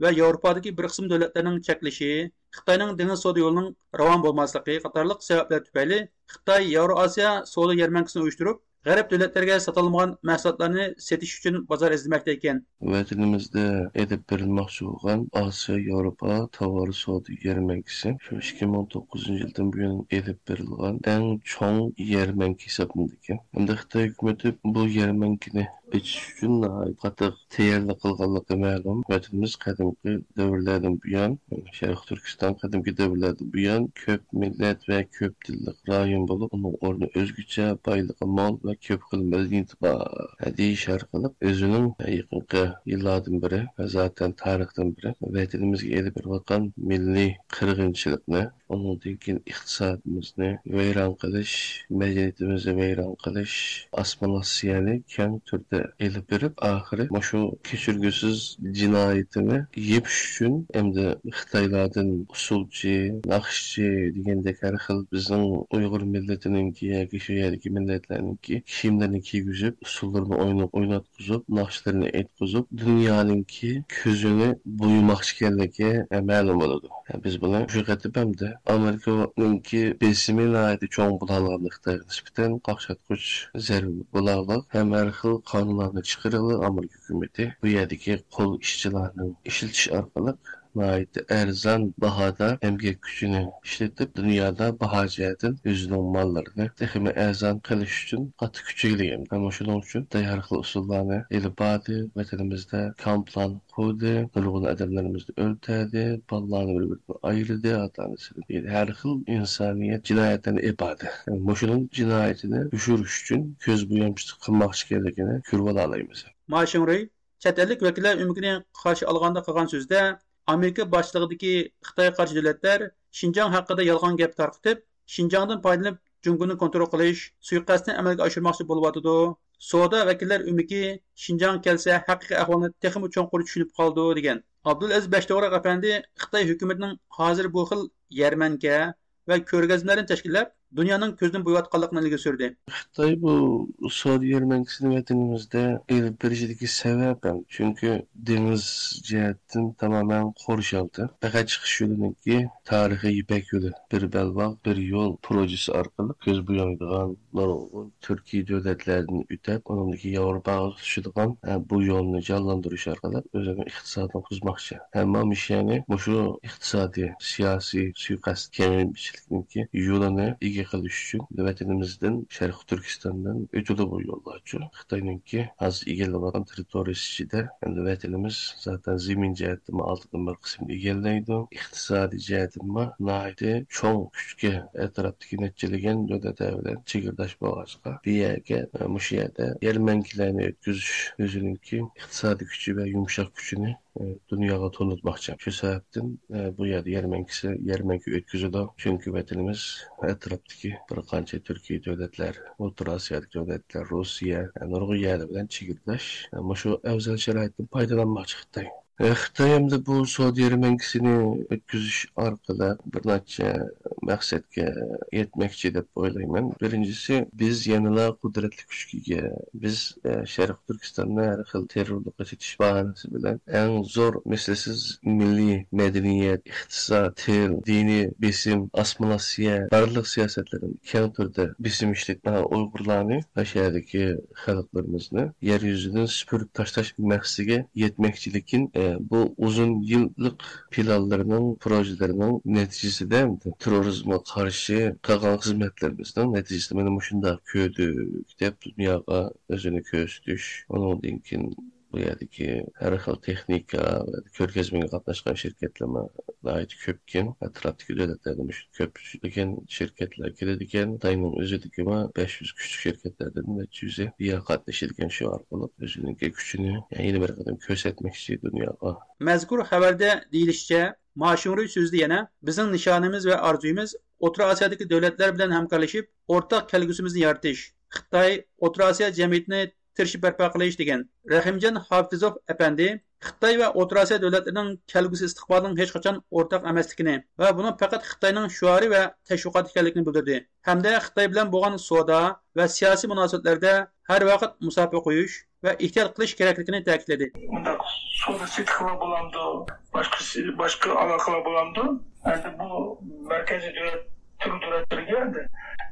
ۋە ياۋروپادىكى بىر قىسىم دۆلەتلەرنىڭ چەكلىشى، خىتاينىڭ دېڭىز سودا يولىنىڭ راۋان بولماسلىقى قاتارلىق سەۋەبلەر تۈپەيلى خىتاي ياۋرو ئاسىيا سودا يەرمەنكىسىنى ئۇيۇشتۇرۇپ، غەرب دۆلەتلىرىگە ساتالمىغان مەھسۇلاتلارنى سېتىش ئۈچۈن بازار ئىزدىمەكتە ئىكەن. ۋەتىنىمىزدە ئېلىپ بېرىلماقچى بولغان ئاسىيا ياۋروپا تاۋار سودا يەرمەنكىسى شۇ ئىككى مىڭ توققۇزىنچى يىلدىن بۇيان ئېلىپ بېرىلغان ئەڭ چوڭ يەرمەنكە ھېسابلىنىدىكەن. ھەمدە خىتاي ھۆكۈمىتى بۇ يەرمەنكىنى ئېچىش ئۈچۈن ناھايىتى قاتتىق تەييارلىق قىلغانلىقى مەلۇم. ۋەتىنىمىز قەدىمكى دەۋرلەردىن بۇيان، شەرقىي تۈركىستان قەدىمكى دەۋرلەردىن بۇيان كۆپ مىللەت ۋە كۆپ تىللىق رايون بولۇپ، ئۇنىڭ ئورنى ئۆزگىچە، بايلىقى مول ۋە كۆپ خىل مەدەنىيىتى بار دېيىش ئارقىلىق ئۆزىنىڭ يېقىنقى يىللاردىن بېرى ۋە زاتەن تارىختىن بېرى ۋەتىنىمىزگە ئېلىپ بېرىۋاتقان مىللىي قىرغىنچىلىقنى، ئۇنىڭدىن كېيىن ئىقتىسادىمىزنى ۋەيران قىلىش، مەدەنىيىتىمىزنى ۋەيران قىلىش، ئاسسىمىلياتسىيەنى كەڭ تۈردە ئېلىپ بېرىپ، ئاخىرى مۇشۇ كەچۈرگۈسىز جىنايىتىنى يېپىش ئۈچۈن ئەمدى خىتايلاردىن ئۇسسۇلچى، ناخشىچى دېگەندەك ھەر خىل بىزنىڭ ئۇيغۇر مىللىتىنىڭكى ياكى شۇ يەردىكى مىللەتلەرنىڭكى كىيىملىرىنى كىيگۈزۈپ، ئۇسسۇللىرىنى ئويناپ، ئويناتقۇزۇپ، ناخشىلىرىنى ئېيتقۇزۇپ، دۇنيانىڭكى كۆزىنى بويىماقچى ئىكەنلىكى مەلۇم بولىدۇ. بىز بۇنى مۇشۇ قېتىم ھەمدە ئامېرىكىنىڭكى بېسىمى ناھايىتى چوڭ بولغانلىقىنى، خىتايغا نىسبەتەن قاقشاتقۇچ زەربە بولارلىق ھەم ھەر خىل قانۇنلارنى چىقىرىۋېلىپ، ئامېرىكا ھۆكۈمىتى بۇ يەردىكى قول ئىشچىلارنىڭ ئىشلىتىش ئارقىلىق ناھايىتى ئەرزان باھادا ئەمگەك كۈچىنى ئىشلىتىپ، دۇنيادا باھا جەھەتتىن ئۆزىنىڭ ماللىرىنى تېخىمۇ ئەرزان قىلىش ئۈچۈن قاتتىق كۈچ ئىگىلىگەن. ئەمما شۇنىڭ ئۈچۈن خىتاي ھەر خىل ئۇسۇللارنى ئېلىپ باردى، ۋەتىنىمىزدە كامپلارنى قۇردى، نۇرغۇن ئادەملىرىمىزنى ئۆلتۈردى، بالىلارنى بىر-بىرىدىن ئايرىدى، ئاتا-ئانىسىدىن، ھەر خىل ئىنسانىيەت جىنايەتلىرىنى ئېلىپ باردى. مۇشۇنىڭ جىنايىتىنى يوشۇرۇش ئۈچۈن كۆز بويامچىلىق قىلماقچى ئىكەنلىكىنى كۆرۈۋالالايمىز. ما شىڭرۇي چەت ئەللىك ۋەكىللەر ئۆمىكىنى قارشى ئالغاندا قىلغان سۆزىدە، ئامېرىكا باشچىلىقىدىكى خىتايغا قارشى دۆلەتلەر شىنجاڭ ھەققىدە يالغان گەپ تارقىتىپ، شىنجاڭدىن پايدىلىنىپ جۇڭگونى كونترول قىلىش سۇيىقەستىنى ئەمەلگە ئاشۇرماقچى بولۇۋاتىدۇ. سودا ۋەكىللەر ئۆمىكى شىنجاڭغا كەلسە ھەقىقىي ئەھۋالنى تېخىمۇ چوڭقۇر چۈشىنىپ قالىدۇ، دېگەن. ئابدۇلئەزىز بەشتوغراق ئەپەندى خىتاي ھۆكۈمىتىنىڭ ھازىر بۇ خىل يەرمەنكە ۋە كۆرگەزمىلەرنى تەشكىللەپ، دۇنيانىڭ كۆزىنى بوياۋاتقانلىقىنى ئىلگىرى سۈردى. خىتاي بۇ سودا يەرمەنكىسىنى ۋەتىنىمىزدە ئېلىپ بېرىشىدىكى سەۋەب ھەم، چۈنكى دېڭىز جەھەتتىن تامامەن قورشالدى. پەقەت چىقىش يولىنىڭكى تارىخىي يىپەك يولى، بىر بەلباغ، بىر يول پروژىسى ئارقىلىق كۆز بويايدىغان نۇرغۇن تۈركىي دۆلەتلەردىن ئۆتۈپ، ئۇنىڭدىن كېيىن ياۋروپاغا تۇتىشىدىغان، ھە، بۇ يولنى جانلاندۇرۇش ئارقىلىق ئۆزىنىڭ ئىقتىسادىنى قۇرماقچى. ئەمما مىشيەنى مۇشۇ ئىقتىسادىي، سىياسىي سۇيىقەست كېڭىيىشلىكنىڭكى يولىنى ئىگە قىلىش ئۈچۈن ۋەتىنىمىزدىن، شەرقىي تۈركىستاندىن ئۆتىدۇ بۇ يوللارچۇ. خىتاينىڭكى ھازىر ئىگىلەۋاتقان تېررىتورىيىسى ئىچىدە، ئەمدى ۋەتىنىمىز زاتەن زېمىن جەھەتتىنمۇ ئالدىنقى بىر قىسىمنى ئىگىلەيدۇ. ئىقتىسادىي جەھەتتىنمۇ ناھايىتى چوڭ كۈچكە، ئەتراپتىكى نەچچىلىگەن دۆلەتلەر بىلەن چېگرىداش بولغاچقا، بۇ يەرگە، مۇشۇ يەردە يەرمەنكىلەرنى ئۆتكۈزۈش ئۆزىنىڭكى ئىقتىسادىي كۈچى ۋە يۇمشاق كۈچىنى، ئە، دۇنياغا تونۇتماقچى. شۇ سەۋەبتىن، ئە، بۇ يەردە يەرمەنكىسى، يەرمەنكە ئۆتكۈزىدۇ. چۈنكى ۋەتىنىمىز ئەتراپتىكى بىر قانچە تۈركىي دۆلەتلەر، ئوتتۇرا ئاسىيادىكى دۆلەتلەر، روسىيە، ئە، نۇرغۇن يەرلەر بىلەن چېگرىداش. ئە، مۇشۇ ئەۋزەل شارائىتتىن پايدىلانماقچى خىتاي. ئە، خىتاي ئەمدى بۇ سودا يەرمەنكىسىنى ئۆتكۈزۈش ئارقىلىق بىر نەچچە مەقسەتكە يەتمەكچى دەپ ئويلايمەن. بىرىنچىسى، بىز يەنىلا قۇدرەتلىك كۈچكە ئىگە. بىز، ئە، شەرقىي تۈركىستاننى ھەر خىل تېررورلۇققا چېتىش باھانىسى بىلەن ئەڭ زور مىسلىسىز مىللىي مەدەنىيەت، ئىقتىساد، تىل، دىنىي بېسىم، ئاسسىمىلياتسىيە، بارلىق سىياسەتلىرىنى كەڭ تۈردە بېسىم ئىشلىتىپ، ئۇيغۇرلارنى ۋە شۇ يەردىكى خەلقلىرىمىزنى يەر يۈزىدىن سۈپۈرۈپ تاشلاش مەقسىتىگە يەتمەكچى. لېكىن، ئە، بۇ ئۇزۇن يىللىق پىلانلىرىنىڭ، پروژىلىرىنىڭ نەتىجىسىدە تېررورىزمغا قارشى قىلغان خىزمەتلىرىمىزنىڭ نەتىجىسىدە مانا مۇشۇنداق كۆردۇق دەپ دۇنياغا ئۆزىنى كۆرسىتىش، ئۇنىڭدىن كېيىن بۇ يەردىكى ھەر خىل تېخنىكا ۋە كۆرگەزمىگە قاتناشقان شىركەتلەرمۇ ناھايىتى كۆپكەن. ئەتراپتىكى دۆلەتلەردىن مۇشۇ كۆپلىگەن شىركەتلەر كېلىدىكەن. خىتاينىڭ ئۆزىدىكىمۇ بەش يۈز كۈچلۈك شىركەتلەردىن نەچچە يۈزى بۇ يەرگە قاتنىشىدىكەن. شۇ ئارقىلىق ئۆزىنىڭكى كۈچىنى يەنە بىر قېتىم كۆرسەتمەكچى دۇنياغا. مەزكۇر خەۋەردە دېيىلىشىچە، ما شىڭرۇي سۆزىدە يەنە، بىزنىڭ نىشانىمىز ۋە ئارزۇيىمىز ئوتتۇرا ئاسىيادىكى دۆلەتلەر بىلەن ھەمكارلىشىپ، ئورتاق كەلگۈسىمىزنى يارىتىش، خىتاي، ئوتتۇرا ئاسىيا جەمئىيىتىنى تىرىشىپ بەرپا قىلىش، دېگەن. رەھىمجان ھاپىزوف ئەپەندى خىتاي ۋە ئوتتۇرا ئاسىيا دۆلەتلىرىنىڭ كەلگۈسى ئىستىقبالىنىڭ ھېچقاچان ئورتاق ئەمەسلىكىنى ۋە بۇنىڭ پەقەت خىتاينىڭ شوئارى ۋە تەشۋىقاتى ئىكەنلىكىنى بىلدۈردى ھەمدە خىتاي بىلەن بولغان سودا ۋە سىياسىي مۇناسىۋەتلەردە ھەر ۋاقىت مۇساپە قويۇش ۋە ئېھتىيات قىلىش كېرەكلىكىنى تەكىتلىدى. مۇنداق سودا سېتىقلار بولامدۇ، باشقا، باشقا ئالاقىلار بولامدۇ؟ ئەمدى بۇ مەركەزىي دۆلەت، تۈرك دۆلەتلىرىگە ئەمدى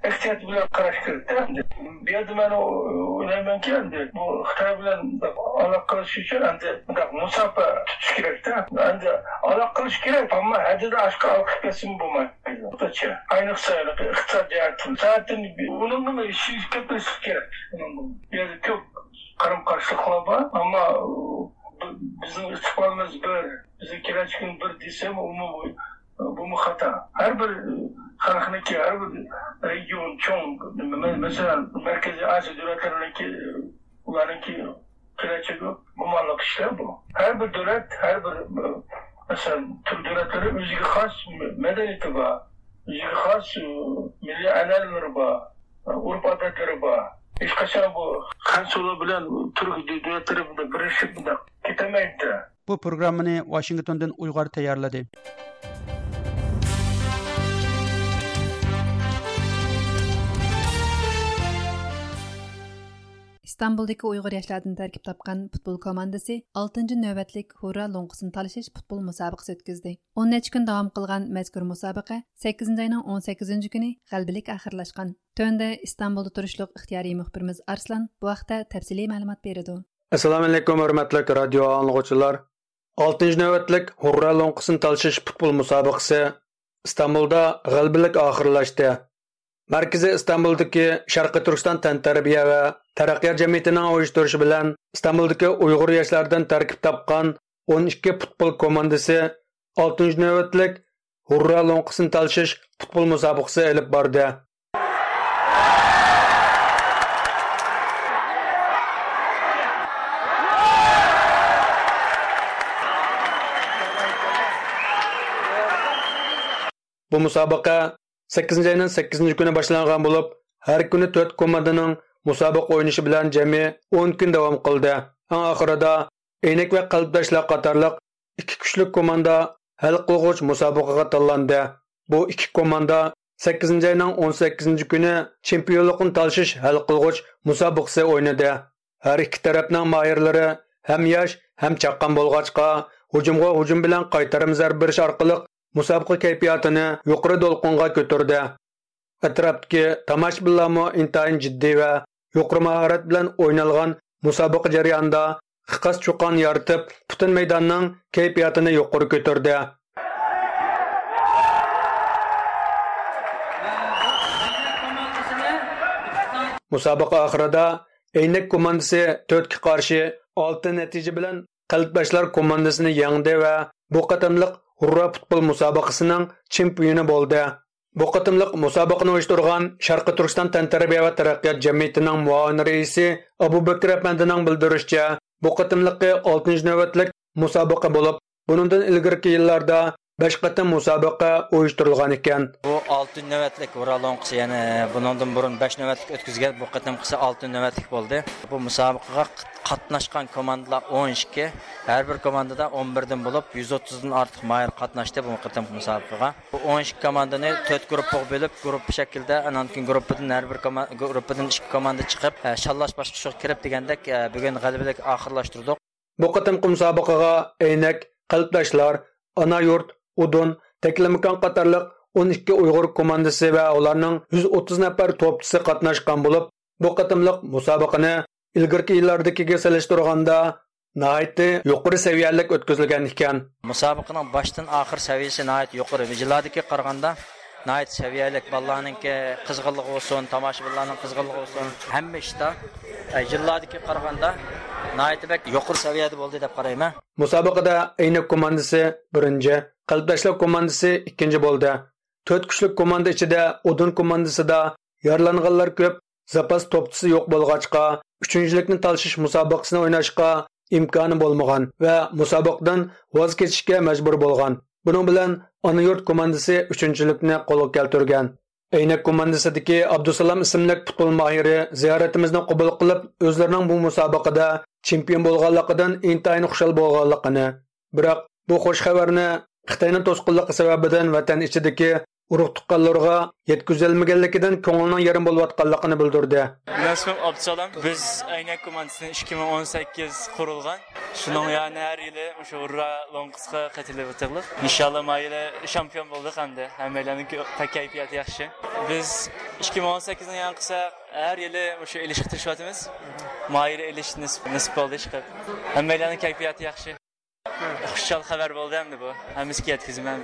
ئېھتىيات بىلەن قاراش كېرەكتە. ئەمدى بۇ يەردە مەن ئويلايمەنكى، ئەمدى بۇ خىتاي بىلەن ئالاقە قىلىش ئۈچۈن ئەمدى مۇنداق مۇساپە تۇتۇش كېرەكتە. ئەمدى ئالاقە قىلىش كېرەك، ئەمما ھەددىدىن ئاشقان ئالاقە قىلىپ كەتسىمۇ بولمايدۇ. ئاينىقسا ئىقتىساد جەھەتتىن، سائەتتىن ئۇنىڭدىن ئىشىنىش كەتمەسلىك كېرەك. ئۇنىڭدىن بۇ يەردە كۆپ قارام قارشىلىقلار بار، ئەمما بىزنىڭ ئىستىقبالىمىز بىر، بىزنىڭ كېلەچىكىمىز بىر دېسەم، ئۇمۇ، بۇمۇ خاتا. ھەر بىر خەلقنىڭكى، ھەر بىر رېگىيون چوڭ، مە-، مەسىلەن، مەركىزىي ئاسىيا دۆلەتلىرىنىڭكى، ئۇلارنىڭكى كېلەچەكى گۇمانلىق ئىشلار بۇ. ھەر بىر دۆلەت، ھەر بىر، مەسىلەن، تۈرك دۆلەتلىرى ئۆزىگە خاس مەدەنىيىتى بار، ئۆزىگە خاس مىللىي ئەنئەنىلىرى بار، ئۆرپ-ئادەتلىرى بار. ھېچقاچان بۇ خەنزۇلار بىلەن تۈرك دۆلەتلىرى بۇنداق بىرلىشىپ بۇنداق كېتەلمەيدۇ. بۇ پروگراممىنى ۋاشىنگتوندىن ئۇيغۇر تەييارلىدى. ئىستانبۇلدىكى ئۇيغۇر ياشلاردىن تەركىب تاپقان پۇتبول كوماندىسى ئالتىنچى نۆۋەتلىك ھۇررا لوڭقىسىنى تالىشىش پۇتبول مۇسابىقىسى ئۆتكۈزدى. ئون نەچچە كۈن داۋام قىلغان مەزكۇر مۇسابىقە سەككىزىنچى ئاينىڭ ئون سەككىزىنچى كۈنى غەلىبىلىك ئاخىرلاشقان. تۆۋەندە ئىستانبۇلدا تۇرۇشلۇق ئىختىيارىي مۇخبىرىمىز ئارسلان بۇ ھەقتە تەپسىلىي مەلۇمات بېرىدۇ. ئەسسالامۇئەلەيكۇم، ھۆرمەتلىك رادىيو ئاڭلىغۇچىلار! ئالتىنچى نۆۋەتلىك ھۇررا لوڭقىسىنى تالىشىش پۇتبول مۇسابىقىسى ئىستانبۇلدا غەلىبىلىك ئاخىرلاشتى. مەركىزى ئىستانبۇلدىكى شەرقىي تۈركىستان تەنتەربىيە ۋە تەرەققىيات جەمئىيىتىنىڭ ئۇيۇشتۇرۇشى بىلەن ئىستانبۇلدىكى ئۇيغۇر ياشلاردىن تەركىب تاپقان ئون ئىككى پۇتبول كوماندىسى ئالتىنچى نۆۋەتلىك ھۇررا لوڭقىسىنى تالىشىش پۇتبول مۇسابىقىسى ئېلىپ باردى. بۇ مۇسابىقە سەككىزىنچى ئاينىڭ سەككىزىنچى كۈنى باشلانغان بولۇپ، ھەر كۈنى تۆت كوماندىنىڭ مۇسابىقە ئوينىشى بىلەن جەمئىي ئون كۈن داۋام قىلدى. ئەڭ ئاخىرىدا ئەينەك ۋە قەلبداشلار قاتارلىق ئىككى كۈچلۈك كوماندا ھەل قىلغۇچ مۇسابىقىگە تاللاندى. بۇ ئىككى كوماندا سەككىزىنچى ئاينىڭ ئون سەككىزىنچى كۈنى چېمپىيونلۇقنى تالىشىش ھەل قىلغۇچ مۇسابىقىسى ئوينىدى. ھەر ئىككى تەرەپنىڭ ماھىرلىرى ھەم ياش، ھەم چاققان بولغاچقا، ھۇجۇمغا ھۇجۇم بىلەن قايتارما زەربە بېرىش ئارقىلىق مۇسابىقە كەيپىياتىنى يۇقىرى دولقۇنغا كۆتۈردى. ئەتراپتىكى تاماشىبىنلارمۇ ئىنتايىن جىددىي ۋە يۇقىرى ماھارەت بىلەن ئوينالغان مۇسابىقە جەريانىدا خىقاس چۇقان يارىتىپ، پۈتۈن مەيداننىڭ كەيپىياتىنى يۇقىرى كۆتۈردى. مۇسابىقە ئاخىرىدا ئەينەك كوماندىسى تۆتكە قارشى ئالتە نەتىجە بىلەن قەلبداشلار كوماندىسىنى يەڭدى ۋە بۇ قېتىملىق ھۇررا پۇتبول مۇسابىقىسىنىڭ چېمپىيونى بولدى. بۇ قېتىملىق مۇسابىقىنى ئۇيۇشتۇرغان شەرقىي تۈركىستان تەنتەربىيە ۋە تەرەققىيات جەمئىيىتىنىڭ مۇئاۋىن رەئىسى ئابۇبەكىر ئەپەندىنىڭ بىلدۈرۈشىچە، بۇ قېتىملىقى ئالتىنچى نۆۋەتلىك مۇسابىقە بولۇپ، بۇنىڭدىن ئىلگىرىكى يىللاردا بەش قېتىم مۇسابىقە ئۇيۇشتۇرۇلغان ئىكەن. بۇ ئالتە نۆۋەتلىك ھۇررا لوڭقىسى، يەنى بۇنىڭدىن بۇرۇن بەش نۆۋەتلىك ئۆتكۈزگەن، بۇ قېتىمقىسى ئالتە نۆۋەتلىك بولدى. بۇ مۇسابىقىگە قاتناشقان كوماندىلار ئون ئىككى، ھەر بىر كوماندىدا ئون بىردىن بولۇپ، يۈز ئوتتۇزدىن ئارتۇق ماھىر قاتناشتى بۇ قېتىمقى مۇسابىقىگە. بۇ ئون ئىككى كوماندىنى تۆت گۇرۇپپىغا بۆلۈپ، گۇرۇپپا شەكلىدە، ئانان كېيىن گۇرۇپپىدىن ھەر بىر كوما-، گۇرۇپپىدىن ئىككى كوماندا چىقىپ، ئە، شاللاش باسقۇچىغا كىرىپ دېگەندەك، ئە، بۈگۈن غەلىبىلىك ئاخىرلاشتۇردۇق. بۇ قېتىمقى مۇسابىقىگە ئەينەك، قەلبداشلار، ئانا يۇرت، ئۇدۇن، تەكلىماكان قاتارلىق ئون ئىككى ئۇيغۇر كوماندىسى ۋە ئۇلارنىڭ يۈز ئوتتۇز نەپەر توپچىسى قاتناشقان بولۇپ، بۇ قېتىملىق مۇسابىقىنى ئىلگىرىكى يىللاردىكىگە سېلىشتۇرغاندا ناھايىتى يۇقىرى سەۋىيەلىك ئۆتكۈزۈلگەن ئىكەن. مۇسابىقىنىڭ باشتىن ئاخىر سەۋىيەسى ناھايىتى يۇقىرى. يىللاردىكىگە قارىغاندا ناھايىتى سەۋىيەلىك. بالىلارنىڭكى قىزغىنلىقى بولسۇن، تاماشىبىنلارنىڭ قىزغىنلىقى بولسۇن، ھەممە ئىشتا، ئە، يىللاردىكىگە قارىغاندا ناھايىتى بەك يۇقىرى سەۋىيەدە بولدى دەپ قارايمەن. مۇسابىقىدە ئەينەك كوماندىسى بىرىنچى، قەلبداشلار كوماندىسى ئىككىنچى بولدى. تۆت كۈچلۈك كوماندا ئىچىدە ئۇدۇن كوماندىسىدا يارىلانغانلار كۆپ، زاپاس توپچىسى يوق بولغاچقا، ئۈچىنچىلىكنى تالىشىش مۇسابىقىسىنى ئويناشقا ئىمكانى بولمىغان ۋە مۇسابىقىدىن ۋاز كېچىشكە مەجبۇر بولغان. بۇنىڭ بىلەن ئانا يۇرت كوماندىسى ئۈچىنچىلىكنى قولغا كەلتۈرگەن. ئەينەك كوماندىسىدىكى ئابدۇسالام ئىسىملىك پۇتبول ماھىرى زىيارىتىمىزنى قوبۇل قىلىپ، ئۆزلىرىنىڭ بۇ مۇسابىقىدە چېمپىيون بولغانلىقىدىن ئىنتايىن خۇشال بولغانلىقىنى، بىراق بۇ خۇش خەۋەرنى خىتاينىڭ توسقۇنلۇقى سەۋەبىدىن ۋەتەن ئىچىدىكى ئۇرۇق تۇغقانلىرىغا يەتكۈزەلمىگەنلىكىدىن كۆڭلىنىڭ يېرىم بولۇۋاتقانلىقىنى بىلدۈردى. مەن ئىسمىم ئابدۇسالام. بىز ئەينەك كوماندىسى ئىككى مىڭ ئون سەككىز قۇرۇلغان. شۇنىڭ يەنى ھەر يىلى مۇشۇ ھۇررا لوڭقىسىغا قېتىلىۋاتىدۇق. ئىنشاللا ما يىلى شامپىيون بولدۇق ئەمدى. ھەممەيلەننىڭ كەيپىياتى ياخشى. بىز ئىككى مىڭ ئون سەككىزنى ياڭ قىلساق، ھەر يىلى مۇشۇ ئېلىشقا تىرىشىۋاتىمىز. ما يىلى ئېلىش نېسىپ، نېسىپ بولدى ئىشقىلىپ. ھەممەيلەننىڭ كەيپىياتى ياخشى. خۇشال خەۋەر بولدى ئەمدى بۇ. ھەممىسىگە يەتكۈزىمەن.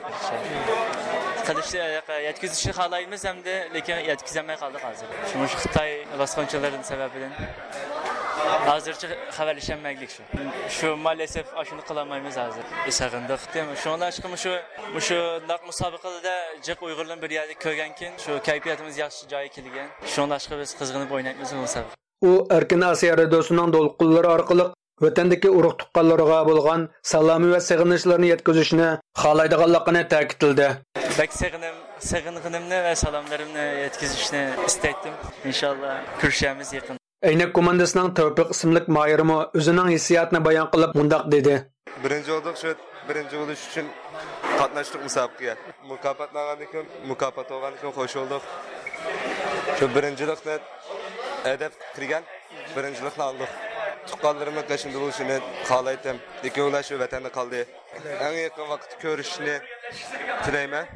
قىلىشنى، يەتكۈزۈشنى خالايمىز ئەمدى، لېكىن يەتكۈزەلمەي قالدۇق ھازىر. شۇ مۇشۇ خىتاي باسقۇنچىلىرىنىڭ سەۋەبىدىن ھازىرچە خەۋەرلىشەلمەيلىك شۇ. شۇ مائەلەسەف ئاشۇنى قىلالمايمىز ھازىر. سېغىندۇق. شۇڭلاشقا مۇشۇ، مۇشۇنداق مۇسابىقىلەردە جىق ئۇيغۇرلارنى بىر يەردە كۆرگەنكىن، شۇ كەيپىياتىمىز ياخشى جايغا كەلگەن. شۇڭلاشقا بىز قىزغىنىپ ئوينايمىز بۇ مۇسابىقە. ئۇ ئەركىن ئاسىيا رادىيوسىنىڭ دولقۇنلىرى ئارقىلىق ۋەتەندىكى ئۇرۇق تۇغقانلىرىغا بولغان سالامى ۋە سېغىنىشلىرىنى يەتكۈزۈشنى خالايدىغانلىقىنى تەكىتلىدى. بەك سېغىنىم، سېغىنغىنىمنى ۋە سالاملىرىمنى يەتكۈزۈشنى ئىستەيتتىم. ئىنشاللا كۆرۈشەرمىز يېقىن. ئەينەك كوماندىسىنىڭ تەۋپىق ئىسىملىك ماھىرىمۇ ئۆزىنىڭ ھېسسىياتىنى بايان قىلىپ مۇنداق دېدى. بىرىنچى بولدۇق، شۇ بىرىنچى بولۇش ئۈچۈن قاتناشتۇق مۇسابىقىگە. مۇكاپاتنى ئالغاندىن كېيىن، مۇكاپات بولغاندىن كېيىن خوش بولدۇق. شۇ بىرىنچىلىقنى ھەدەپ كىرگەن، بىرىنچىلىقنى ئالدۇق. تۇغقانلىرىمنىڭ قېشىمدا بولۇشىنى خالايتتىم. لېكىن ئۇلار شۇ ۋەتەندە قالدى. ئەڭ يېقىن ۋاقىتتا كۆرۈشۈشنى تىلەيمەن.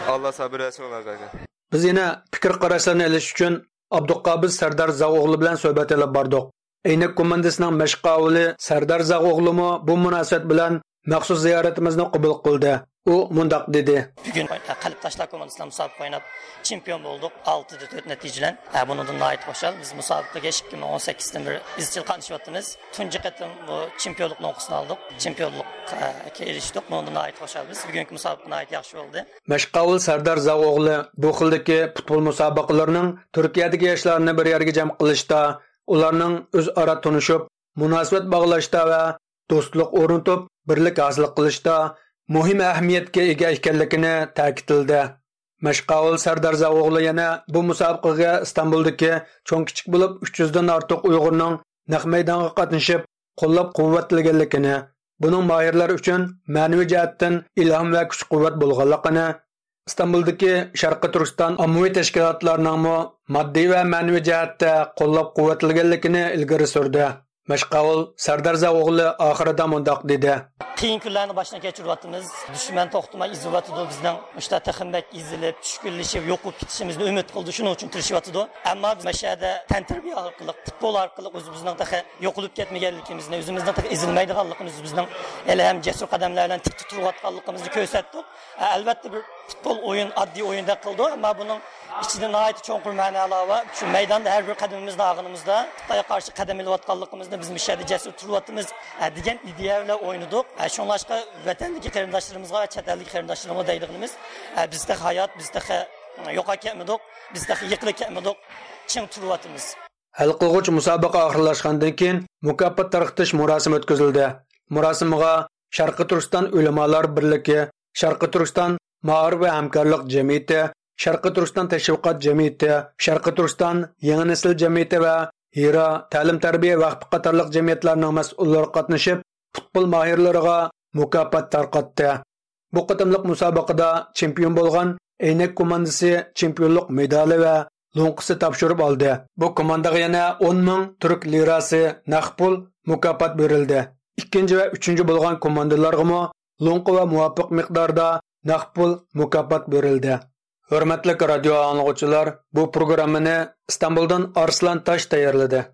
ئاللا سابىر بەرسۇن ئۇلارغا. بىز يەنە پىكىر قاراشلارنى ئېلىش ئۈچۈن ئابدۇقابىز سەردار زاغ ئوغلى بىلەن سۆھبەت ئېلىپ باردۇق. ئەينەك كوماندىسىنىڭ مەشىق ئاۋۇلى سەردار زاغ ئوغلىمۇ بۇ مۇناسىۋەت بىلەن مەخسۇس زىيارىتىمىزنى قوبۇل قىلدى. ئۇ مۇنداق دېدى. بۈگۈن قەلبىداشلار كوماندىسى بىلەن مۇسابىقە ئويناپ، چېمپىيون بولدۇق. ئالتىدە تۆت نەتىجە بىلەن. ھە، بۇنىڭدىن ناھايىتى خۇشال. بىز مۇسابىقىگە ئىككى مىڭ ئون سەككىزدىن بېرى ئىزچىل قاتنىشىۋاتىمىز. تۇنجى قېتىم بۇ چېمپىيونلۇقنىڭ ئۇنقىسىنى ئالدۇق. چېمپىيونلۇققا ئېرىشتۇق. بۇنىڭدىن ناھايىتى خۇشال بىز. بۈگۈنكى مۇسابىقە ناھايىتى ياخشى بولدى. مەشىق ئاۋۇلى سەردار زاغ ئوغلى بۇ خىلدىكى پۇتبول مۇسابىقىلىرىنىڭ تۈركىيەدىكى ياشلارنى بىر يەرگە جەم قىلىشتا، ئۇلارنىڭ ئۆزئارا تونۇشۇپ، مۇناسىۋەت باغلاشتا ۋە دوستلۇق ئورنىتىپ، بىرلىك ھاسىل قىلىشتا مۇھىم ئەھمىيەتكە ئىگە ئىكەنلىكىنى تەكىتلىدى. مەشىق ئاۋۇلى سەردار زاغ ئوغلى يەنە بۇ مۇسابىقىگە ئىستانبۇلدىكى چوڭ كىچىك بولۇپ ئۈچ يۈزدىن ئارتۇق ئۇيغۇرنىڭ نەق مەيدانغا قاتنىشىپ، قوللاپ-قۇۋۋەتلىگەنلىكىنى، بۇنىڭ ماھىرلار ئۈچۈن مەنىۋى جەھەتتىن ئىلھام ۋە كۈچ-قۇۋۋەت بولغانلىقىنى، ئىستانبۇلدىكى شەرقىي تۈركىستان ئاممىۋى تەشكىلاتلارنىڭمۇ ماددىي ۋە مەنىۋى جەھەتتە قوللاپ-قۇۋۋەتلىگەنلىكىنى ئىلگىرى سۈردى. مەشىق ئاۋۇلى سەردار زاغ ئوغلى ئاخىرىدا مۇنداق دېدى. قىيىن كۈنلەرنى باشتىن كەچۈرۈۋاتىمىز. دۈشمەن توختىماي ئېزىۋاتىدۇ بىزنىڭ. مۇشۇنداق تېخىمۇ بەك ئېزىلىپ، چۈشكۈنلىشىپ، يوقىلىپ كېتىشىمىزنى ئۈمىد قىلىدۇ. شۇنىڭ ئۈچۈن تىرىشىۋاتىدۇ. ئەمما بىز مۇشۇ يەردە تەنتەربىيە ئارقىلىق، پۇتبول ئارقىلىق ئۆزىمىزنىڭ تېخى يوقىلىپ كەتمىگەنلىكىمىزنى، ئۆزىمىزنىڭ تېخى ئېزىلمەيدىغانلىقىمىزنى، ئۆزىمىزنىڭ ھېلىھەم جەسۇر قەدەملەر بىلەن تىكتە تۇرۇۋاتقانلىقىمىزنى كۆرسەتتۇق. ئەلۋەتتە، بىر پۇتبول ئويۇن ئاددىي ئويۇندەك قىلىدۇ، ئەمما بۇنىڭ ئىچىدە ناھايىتى چوڭقۇر مەنالار بار. شۇ مەيداندا ھەر بىر قەدىمىمىزنى ئالغىنىمىزدا، خىتايغا قارشى قەدەم ئېلىۋاتقانلىقىمىزنى، بىز مۇشۇ يەردە جەسۇر تۇرۇۋاتىمىز، ھە، دېگەن ئىدىيە بىلەن ئوينىدۇق. ھە، شۇڭلاشقا ۋەتەندىكى قېرىنداشلىرىمىزغا ۋە چەت ئەلدىكى قېرىنداشلىرىمىزغا دەيدىغىنىمىز، ھە، بىز تېخى ھايات، بىز تېخى يوقاپ كەتمىدۇق، بىز تېخى يىقىلىپ كەتمىدۇق، چىڭ تۇرۇۋاتىمىز. ھەل قىلغۇچ مۇسابىقە ئاخىرلاشقاندىن كېيىن، مۇكاپات تارقىتىش مۇراسىمى ئۆتكۈزۈلدى. مۇراسىمغا شەرقىي تۈركىستان ئۆلىمالار بىرلىكى، شەرقىي تۈركىستان مائارىپ ۋە ھەمكارلىق جەمئىيىتى، شەرقىي تۈركىستان تەشۋىقات جەمئىيىتى، شەرقىي تۈركىستان يېڭى نەسىل جەمئىيىتى ۋە ھىرا تەلىم-تەربىيە ۋەقپى قاتارلىق جەمئىيەتلەرنىڭ مەسئۇللىرى قاتنىشىپ، پۇتبول ماھىرلىرىغا مۇكاپات تارقاتتى. بۇ قېتىملىق مۇسابىقىدە چېمپىيون بولغان ئەينەك كوماندىسى چېمپىيونلۇق مېدالى ۋە لوڭقىسى تاپشۇرۇپ ئالدى. بۇ كوماندىغا يەنە ئون مىڭ تۈرك لىراسى نەق پۇل مۇكاپات بېرىلدى. ئىككىنچى ۋە ئۈچىنچى بولغان كوماندىلارغىمۇ لوڭقا ۋە مۇۋاپىق مىقداردا نەق پۇل مۇكاپات بېرىلدى. ھۆرمەتلىك رادىيو ئاڭلىغۇچىلار، بۇ پروگراممىنى ئىستانبۇلدىن ئارسلان تاش تەييارلىدى.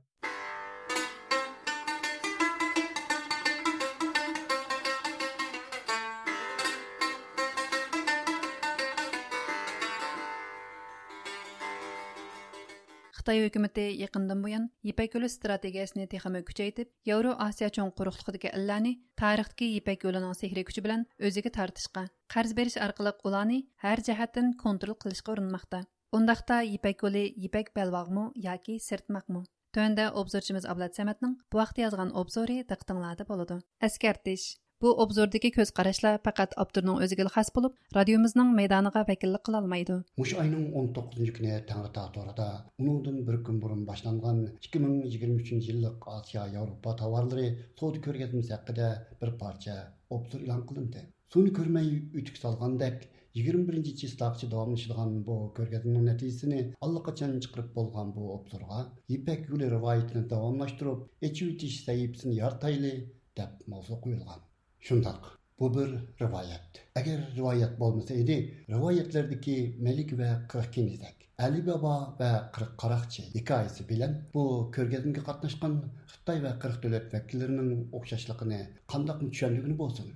خىتاي ھۆكۈمىتى يېقىندىن بۇيان يىپەك يولى ئىستراتېگىيەسىنى تېخىمۇ كۈچەيتىپ، ياۋرو ئاسىيا چوڭ قۇرۇقلۇقىدىكى ئەللەرنى تارىختىكى يىپەك يولىنىڭ سېھرىي كۈچى بىلەن ئۆزىگە تارتىشقا، قەرز بېرىش ئارقىلىق ئۇلارنى ھەر جەھەتتىن كونترول قىلىشقا ئۇرۇنماقتا. ئۇنداقتا يىپەك يولى يىپەك بەلباغمۇ ياكى سىرتماقمۇ؟ تۆۋەندە ئوبزورچىمىز ئابلەت سەمەتنىڭ بۇ ھەقتە يازغان ئوبزورى دىققىتىڭلاردا بولىدۇ. ئەسكەرتىش. بۇ ئوبزوردىكى كۆز قاراشلار پەقەت ئاپتورنىڭ ئۆزىگىلا خاس بولۇپ، رادىيومىزنىڭ مەيدانىغا ۋەكىللىك قىلالمايدۇ. مۇشۇ ئاينىڭ ئون توققۇزىنچى كۈنى تەڭرىتاغ تورىدا ئۇنىڭدىن بىر كۈن بۇرۇن باشلانغان ئىككى مىڭ يىگىرمە ئۈچىنچى يىللىق ئاسىيا ياۋروپا تاۋارلىرى سودا كۆرگەزمىسى ھەققىدە بىر پارچە ئوبزور ئېلان قىلىندى. سۇنى كۆرمەي ئۆتۈك سالغاندەك، يىگىرمە بىرىنچى چىسلاغىچە داۋاملىشىدىغان بۇ كۆرگەزمىنىڭ نەتىجىسىنى ئاللىقاچان چىقىرىپ بولغان بۇ ئوبزورغا يىپەك يولى رىۋايىتىنى داۋاملاشتۇرۇپ، ئېچىۋېتىش سەھىپىسىنى يارىتايلى، دەپ ماۋزۇ قويۇلغان. شۇنداق، بۇ بىر رىۋايەت. ئەگەر رىۋايەت بولمىسا ئىدى، رىۋايەتلەردىكى مەلىكە ۋە قىرىق كېنىزەك، ئەلى بابا ۋە قىرىق قاراقچى ھېكايىسى بىلەن بۇ كۆرگەزمىگە قاتناشقان خىتاي ۋە قىرىق دۆلەت ۋەكىللىرىنىڭ ئوخشاشلىقىنى قانداقمۇ چۈشەندۈرگىلى بولسۇن؟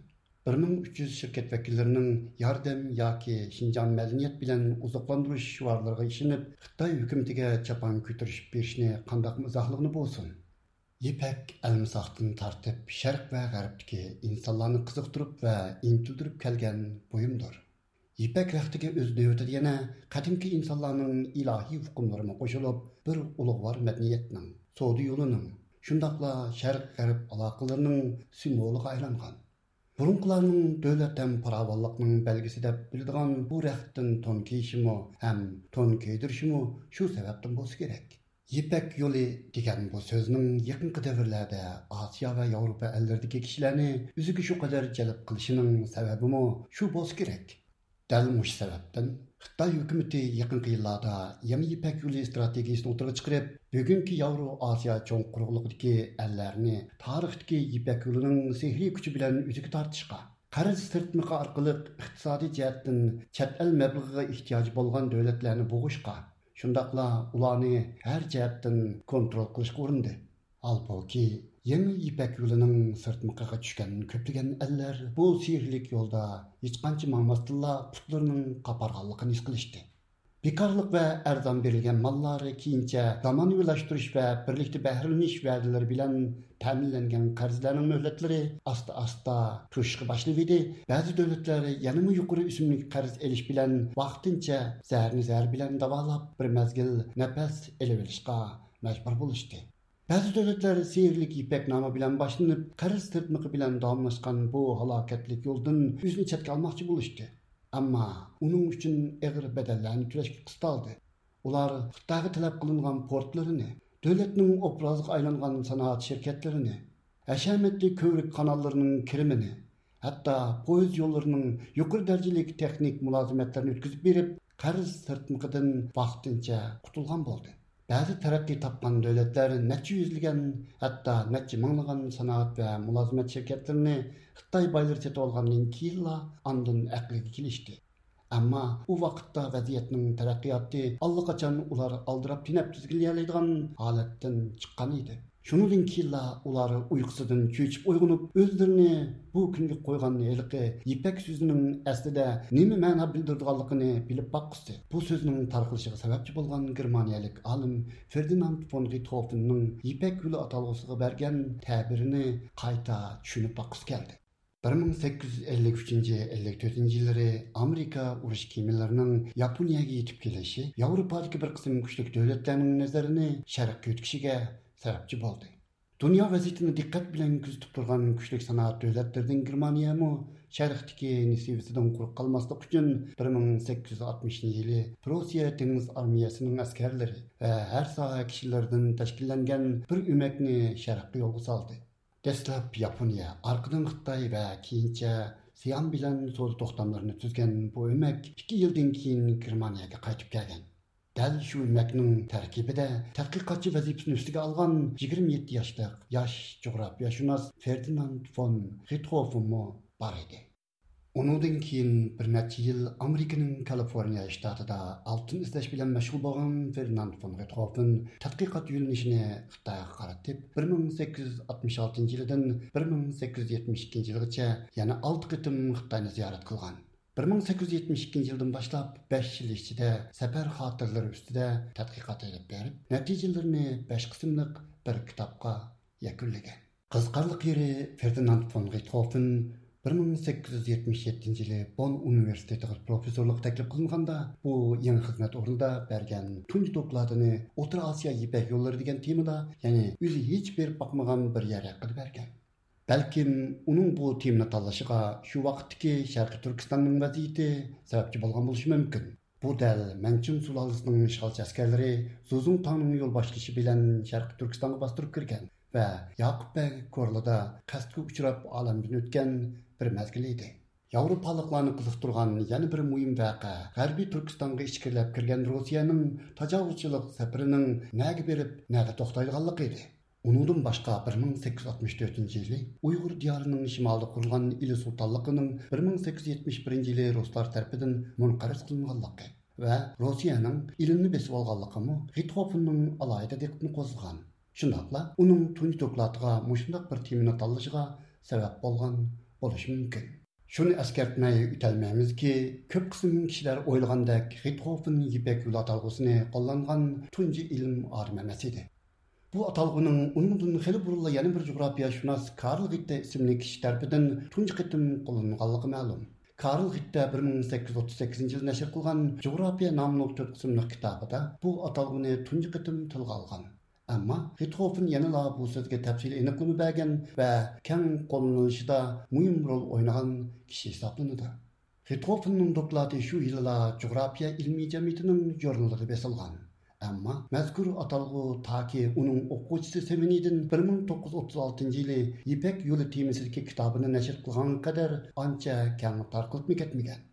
بىر مىڭ ئۈچ يۈز شىركەت ۋەكىللىرىنىڭ ياردەم ياكى شىنجاڭ مەدەنىيەت بىلەن ئوزۇقلاندۇرۇش شوئارلىرىغا ئىشىنىپ، خىتاي ھۆكۈمىتىگە چاپان كۆتۈرۈشۈپ بېرىشىنى قانداقمۇ ئىزاھلىغىلى بولسۇن؟ يىپەك ئەلمىساقتىن تارتىپ شەرق ۋە غەربتىكى ئىنسانلارنى قىزىقتۇرۇپ ۋە ئىنتىلدۈرۈپ كەلگەن بۇيۇمدۇر. يىپەك رەختىگە ئۆز نۆۋىتىدە يەنە قەدىمكى ئىنسانلارنىڭ ئىلاھىي ئۇقۇملىرىمۇ قوشۇلۇپ، بىر ئۇلۇغۋار مەدەنىيەتنىڭ، سودا يولىنىڭ، شۇنداقلا شەرق غەرب ئالاقىلىرىنىڭ سىمۋولىغا ئايلانغان. بۇرۇنقىلارنىڭ دۆلەت ھەم پاراۋانلىقنىڭ بەلگىسى دەپ بىلىدىغان بۇ رەختتىن تون كىيىشىمۇ ھەم تون كىيدۈرۈشىمۇ شۇ سەۋەبتىن بولسا كېرەك. يىپەك يولى دېگەن بۇ سۆزنىڭ يېقىنقى دەۋرلەردە ئاسىيا ۋە ياۋروپا ئەللىرىدىكى كىشىلەرنى ئۆزىگە شۇ قەدەر جەلپ قىلىشىنىڭ سەۋەبىمۇ شۇ بولسا كېرەك. دەل مۇشۇ سەۋەبتىن خىتاي ھۆكۈمىتى يېقىنقى يىللاردا يېڭى يىپەك يولى ئىستراتېگىيىسىنى ئوتتۇرىغا چىقىرىپ، بۈگۈنكى ياۋرو ئاسىيا چوڭ قۇرۇقلۇقىدىكى ئەللەرنى تارىختىكى يىپەك يولىنىڭ سېھرىي كۈچى بىلەن ئۆزىگە تارتىشقا، قەرز سىرتمىقى ئارقىلىق ئىقتىسادىي جەھەتتىن چەت ئەل مەبلىغىغا ئېھتىياجى بولغان دۆلەتلەرنى بوغۇشقا، شۇنداقلا ئۇلارنى ھەر جەھەتتىن كونترول قىلىشقا ئۇرۇندى. ھالبۇكى، يېڭى يىپەك يولىنىڭ سىرتمىقىغا چۈشكەن كۆپلىگەن ئەللەر بۇ سېھىرلىك يولدا ھېچقانچە ماڭماستىنلا پۇتلىرىنىڭ قاپارغانلىقىنى ھېس قىلىشتى. بىكارلىق ۋە ئەرزان بېرىلگەن ماللار كېيىنچە زامانىۋىلاشتۇرۇش ۋە بىرلىكتە بەھرىلىنىش ۋەدىلىرى بىلەن تەمىنلەنگەن قەرزلەرنىڭ مۆھلەتلىرى ئاستا-ئاستا توشۇشقا باشلىۋىدى. بەزى دۆلەتلەر يەنىمۇ يۇقىرى ئۆسۈملۈك قەرز ئېلىش بىلەن ۋاقتىنچە زەھەرنى زەھەر بىلەن داۋالاپ، بىر مەزگىل نەپەس ئېلىۋېلىشقا مەجبۇر بولۇشتى. بەزى دۆلەتلەر سېھىرلىك يىپەك نامى بىلەن باشلىنىپ، قەرز سىرتمىقى بىلەن داۋاملاشقان بۇ ھالاكەتلىك يولدىن ئۆزىنى چەتكە ئالماقچى بولۇشتى. ئەمما ئۇنىڭ ئۈچۈن ئېغىر بەدەللەرنى تۆلەشكە قىستالدى. ئۇلار خىتايغا تەلەپ قىلىنغان پورتلىرىنى، دۆلەتنىڭ ئوبرازىغا ئايلانغان سانائەت شىركەتلىرىنى، ھەشەمەتلىك كۆۋرۈك قاناللىرىنىڭ كىرىمىنى، ھەتتا پويىز يوللىرىنىڭ يۇقىرى دەرىجىلىك تېخنىك مۇلازىمەتلىرىنى ئۆتكۈزۈپ بېرىپ، قەرز سىرتمىقىدىن ۋاقتىنچە قۇتۇلغان بولدى. بەزى تەرەققىي تاپقان دۆلەتلەر نەچچە يۈزلىگەن، ھەتتا نەچچە مىڭلىغان سانائەت ۋە مۇلازىمەت شىركەتلىرىنى خىتاي بايلىرى سېتىۋالغاندىن كېيىنلا ئاندىن ئەقلىگە كېلىشتى. ئەمما ئۇ ۋاقىتتا ۋەزىيەتنىڭ تەرەققىياتى ئاللىقاچان ئۇلار ئالدىراپ تېنەپ تىزگىنلىيەلەيدىغان ھالەتتىن چىققان ئىدى. شۇنىڭدىن كېيىنلا ئۇلار ئۇيقۇسىدىن چۆچۈپ ئويغىنىپ، ئۆزلىرىنى بۇ كۈنگە قويغان ھېلىقى يىپەك سۆزىنىڭ ئەسلىدە نېمە مەنا بىلدۈرىدىغانلىقىنى بىلىپ باققۇسى. بۇ سۆزنىڭ تارقىلىشىغا سەۋەبچى بولغان گېرمانىيەلىك ئالىم فېردىناند فون رىتخوفېننىڭ يىپەك يولى ئاتالغۇسىغا بەرگەن تەبىرىنى قايتا چۈشىنىپ باققۇسى كەلدى. بىر مىڭ سەككىز يۈز ئەللىك ئۈچىنچى، ئەللىك تۆتىنچى يىللىرى ئامېرىكا ئۇرۇش كېمىلىرىنىڭ ياپونىيەگە يېتىپ كېلىشى ياۋروپادىكى بىر قىسىم كۈچلۈك دۆلەتلەرنىڭ نەزىرىنى شەرققە يۆتكىشىگە سەۋەبچى بولدى. دۇنيا ۋەزىيىتىنى دىققەت بىلەن كۆزىتىپ تۇرغان كۈچلۈك سانائەت دۆلەتلىرىدىن گېرمانىيەمۇ شەرقتىكى نېسىۋىسىدىن قۇرۇق قالماسلىق ئۈچۈن، بىر مىڭ سەككىز يۈز ئاتمىشىنچى يىلى پروسىيە دېڭىز ئارمىيەسىنىڭ ئەسكەرلىرى ۋە ھەر ساھە كىشىلىرىدىن تەشكىللەنگەن بىر ئۆمەكنى شەرققە يولغا سالدى. دەسلەپ ياپونىيە، ئارقىدىن خىتاي ۋە كېيىنچە سىئان بىلەن سودا توختاملىرىنى تۈزگەن بۇ ئۆمەك ئىككى يىلدىن كېيىن گېرمانىيەگە قايتىپ كەلگەن. دەل شۇ ئۆمەكنىڭ تەركىبىدە تەتقىقاتچى ۋەزىپىسىنى ئۈستىگە ئالغان يىگىرمە يەتتە ياشلىق ياش جۇغراپىيەشۇناس فېردىناند فون رىتخوفېنمۇ بار ئىدى. ئۇنىڭدىن كېيىن بىر نەچچە يىل ئامېرىكىنىڭ كالىفورنىيە شتاتىدا ئالتۇن ئىزدەش بىلەن مەشغۇل بولغان فېردىناند فون رىتخوفېن تەتقىقات يۆنىلىشىنى خىتايغا قارىتىپ، بىر مىڭ سەككىز يۈز ئاتمىش ئالتىنچى يىلىدىن بىر مىڭ سەككىز يۈز يەتمىش ئىككىنچى يىلغىچە يەنە ئالتە قېتىم خىتاينى زىيارەت قىلغان. بىر مىڭ سەككىز يۈز يەتمىش ئىككىنچى يىلدىن باشلاپ بەش يىل ئىچىدە سەپەر خاتىرىلىرى ئۈستىدە تەتقىقات ئېلىپ بېرىپ، نەتىجىلىرىنى بەش قىسىملىق بىر كىتابقا يەكۈنلىگەن. قىزىقارلىق يېرى، فېردىناند فون رىتخوفېن بىر مىڭ سەككىز يۈز يەتمىش يەتتىنچى يىلى بون ئۇنىۋېرسىتېتىغا پروفېسسورلۇققا تەكلىپ قىلىنغاندا، بۇ يېڭى خىزمەت ئورنىدا بەرگەن تۇنجى دوكلاتىنى ئوتتۇرا ئاسىيا يىپەك يوللىرى دېگەن تېمىدا، يەنى ئۆزى ھېچ بېرىپ باقمىغان بىر يەر ھەققىدە بەرگەن. بەلكىم ئۇنىڭ بۇ تېمىنى تاللىشىغا شۇ ۋاقىتتىكى شەرقىي تۈركىستاننىڭ ۋەزىيىتى سەۋەبچى بولغان بولۇشى مۇمكىن. بۇ دەل مەنچىڭ سۇلالىسىنىڭ ئىشغالچى ئەسكەرلىرى زۇزۇڭ تاڭنىڭ يول باشلىشى بىلەن شەرقىي تۈركىستانغا باستۇرۇپ كىرگەن ۋە ياقۇپ بەگ كورلىدا قەستكە ئۇچراپ ئالەمدىن ئۆتكەن بىر مەزگىل ئىدى. ياۋروپالىقلارنى قىزىقتۇرغان يەنە بىر مۇھىم ۋەقە غەربىي تۈركىستانغا ئىچكىرىلەپ كىرگەن روسىيەنىڭ تاجاۋۇزچىلىق سەپىرىنىڭ نەگە بېرىپ، نەدە توختايدىغانلىقى ئىدى. ئۇنىڭدىن باشقا، بىر مىڭ سەككىز يۈز ئاتمىش تۆتىنچى يىلى ئۇيغۇر دىيارىنىڭ شىمالىدا قۇرۇلغان ئىلى سۇلتانلىقىنىڭ بىر مىڭ سەككىز يۈز يەتمىش بىرىنچى يىلى رۇسلار تەرىپىدىن مۇنقەرز قىلىنغانلىقى ۋە روسىيەنىڭ ئىلىمنى بېسىۋالغانلىقىمۇ رىتخوفېننىڭ ئالاھىدە دىققىتىنى قوزغىغان. شۇنداقلا ئۇنىڭ تۇنجى دوكلاتىغا مۇشۇنداق بىر تېمىنى تاللىشىغا سەۋەب بولغان بولۇشى مۇمكىن. شۇنى ئەسكەرتمەي ئۆتەلمەيمىزكى، كۆپ قىسىم كىشىلەر ئويلىغاندەك رىتخوفېن يىپەك يولى ئاتالغۇسىنى قوللانغان تۇنجى ئىلىم ئادىمى ئەمەس ئىدى. بۇ ئاتالغۇنىڭ ئۇنىڭدىن خېلى بۇرۇنلا يەنە بىر جۇغراپىيەشۇناس كارل غىتتە ئىسىملىك كىشى تەرىپىدىن تۇنجى قېتىم قوللىنىلغانلىقى مەلۇم. كارل غىتتە بىر مىڭ سەككىز يۈز ئوتتۇز سەككىزىنچى يىلى نەشر قىلغان جۇغراپىيە ناملىق تۆت قىسىملىق كىتابىدا بۇ ئاتالغۇنى تۇنجى قېتىم تىلغا ئالغان. ئەمما رىتخوفېن يەنىلا بۇ سۆزگە تەپسىلىي ئېنىقلىما بەرگەن ۋە كەڭ قوللىنىلىشىدا مۇھىم رول ئوينىغان كىشى ھېسابلىنىدۇ. رىتخوفېننىڭ دوكلاتى شۇ يىلىلا جۇغراپىيە ئىلمىي جەمئىيىتىنىڭ ژۇرنىلىدا بېسىلغان. ئەمما مەزكۇر ئاتالغۇ تاكى ئۇنىڭ ئوقۇغۇچىسى سېۋېنىدىن بىر مىڭ توققۇز يۈز ئوتتۇز ئالتىنچى يىلى يىپەك يولى تېمىسىدىكى كىتابىنى نەشر قىلغانغا قەدەر ئانچە كەڭ تارقىلىپمۇ كەتمىگەن.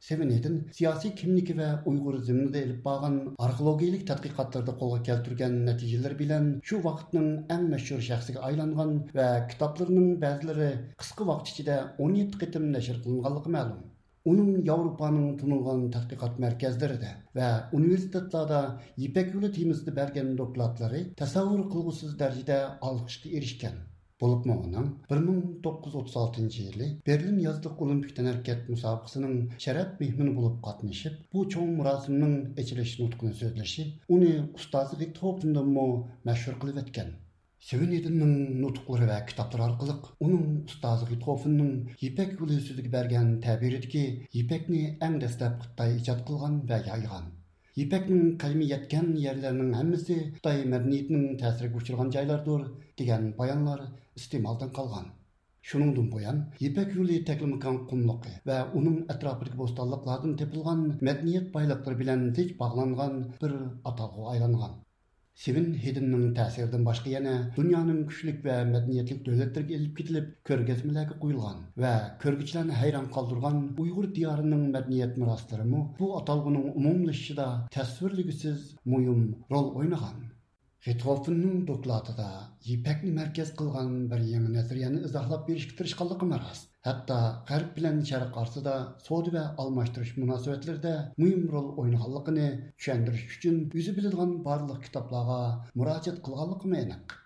سېۋېنىدىن سىياسىي كىملىكى ۋە ئۇيغۇر زېمىنىدا ئېلىپ بارغان ئارخېئولوگىيىلىك تەتقىقاتلىرىدا قولغا كەلتۈرگەن نەتىجىلىرى بىلەن شۇ ۋاقىتنىڭ ئەڭ مەشھۇر شەخسىگە ئايلانغان ۋە كىتابلىرىنىڭ بەزىلىرى قىسقا ۋاقىت ئىچىدە ئون يەتتە قېتىم نەشر قىلىنغانلىقى مەلۇم. ئۇنىڭ ياۋروپانىڭ تونۇلغان تەتقىقات مەركەزلىرىدە ۋە ئۇنىۋېرسىتېتلاردا يىپەك يولى تېمىسىدا بەرگەن دوكلاتلىرى تەسەۋۋۇر قىلغۇسىز دەرىجىدە ئالقىشقا ئېرىشكەن. بولۇپمۇ ئۇنىڭ بىر مىڭ توققۇز يۈز ئوتتۇز ئالتىنچى يىلى بېرلىن يازلىق ئولىمپىك تەنھەرىكەت مۇسابىقىسىنىڭ شەرەپ مېھمىنى بولۇپ قاتنىشىپ، بۇ چوڭ مۇراسىمنىڭ ئېچىلىش نۇتقىنى سۆزلىشى ئۇنى ئۇستازى رىتخوفېندىنمۇ مەشھۇر قىلىۋەتكەن. سېۋېنىدىننىڭ نۇتۇقلىرى ۋە كىتابلىرى ئارقىلىق ئۇنىڭ ئۇستازى رىتخوفېننىڭ يىپەك يولى سۆزىگە بەرگەن تەبىرىدىكى يىپەكنى ئەڭ دەسلەپ خىتاي ئىجاد قىلغان ۋە يايغان، يىپەكنىڭ قەدىمىي يەتكەن يەرلەرنىڭ ھەممىسى خىتاي مەدەنىيىتىنىڭ تەسىرىگە ئۇچرىغان جايلاردۇر، دېگەن بايانلار ئىستېمالدىن قالغان. شۇنىڭدىن بۇيان، يىپەك يولى تەكلىماكان قۇملۇقى ۋە ئۇنىڭ ئەتراپىدىكى بوستانلىقلاردىن تېپىلغان مەدەنىيەت بايلىقلىرى بىلەن زىچ باغلانغان بىر ئاتالغۇغا ئايلانغان. سېۋېن ھېدىننىڭ تەسىرىدىن باشقا يەنە دۇنيانىڭ كۈچلۈك ۋە مەدەنىيەتلىك دۆلەتلىرىگە ئېلىپ كېتىلىپ، كۆرگەزمىلەرگە قويۇلغان ۋە كۆرگۈچىلەرنى ھەيران قالدۇرغان ئۇيغۇر دىيارىنىڭ مەدەنىيەت مىراسلىرىمۇ بۇ ئاتالغۇنىڭ ئومۇملىشىشىدا تەسۋىرلىگۈسىز مۇھىم رول ئوينىغان. رىتخوفېننىڭ دوكلاتىدا يىپەكنى مەركەز قىلغان بىر يېڭى نەزەرىيەنى ئىزاھلاپ بېرىشكە تىرىشقانلىقىمۇ راست. ھەتتا غەرب بىلەن شەرق ئارىسىدا سودا ۋە ئالماشتۇرۇش مۇناسىۋەتلىرىدە مۇھىم رول ئوينىغانلىقىنى چۈشەندۈرۈش ئۈچۈن ئۆزى بىلىدىغان بارلىق كىتابلارغا مۇراجىئەت قىلغانلىقىمۇ ئېنىق.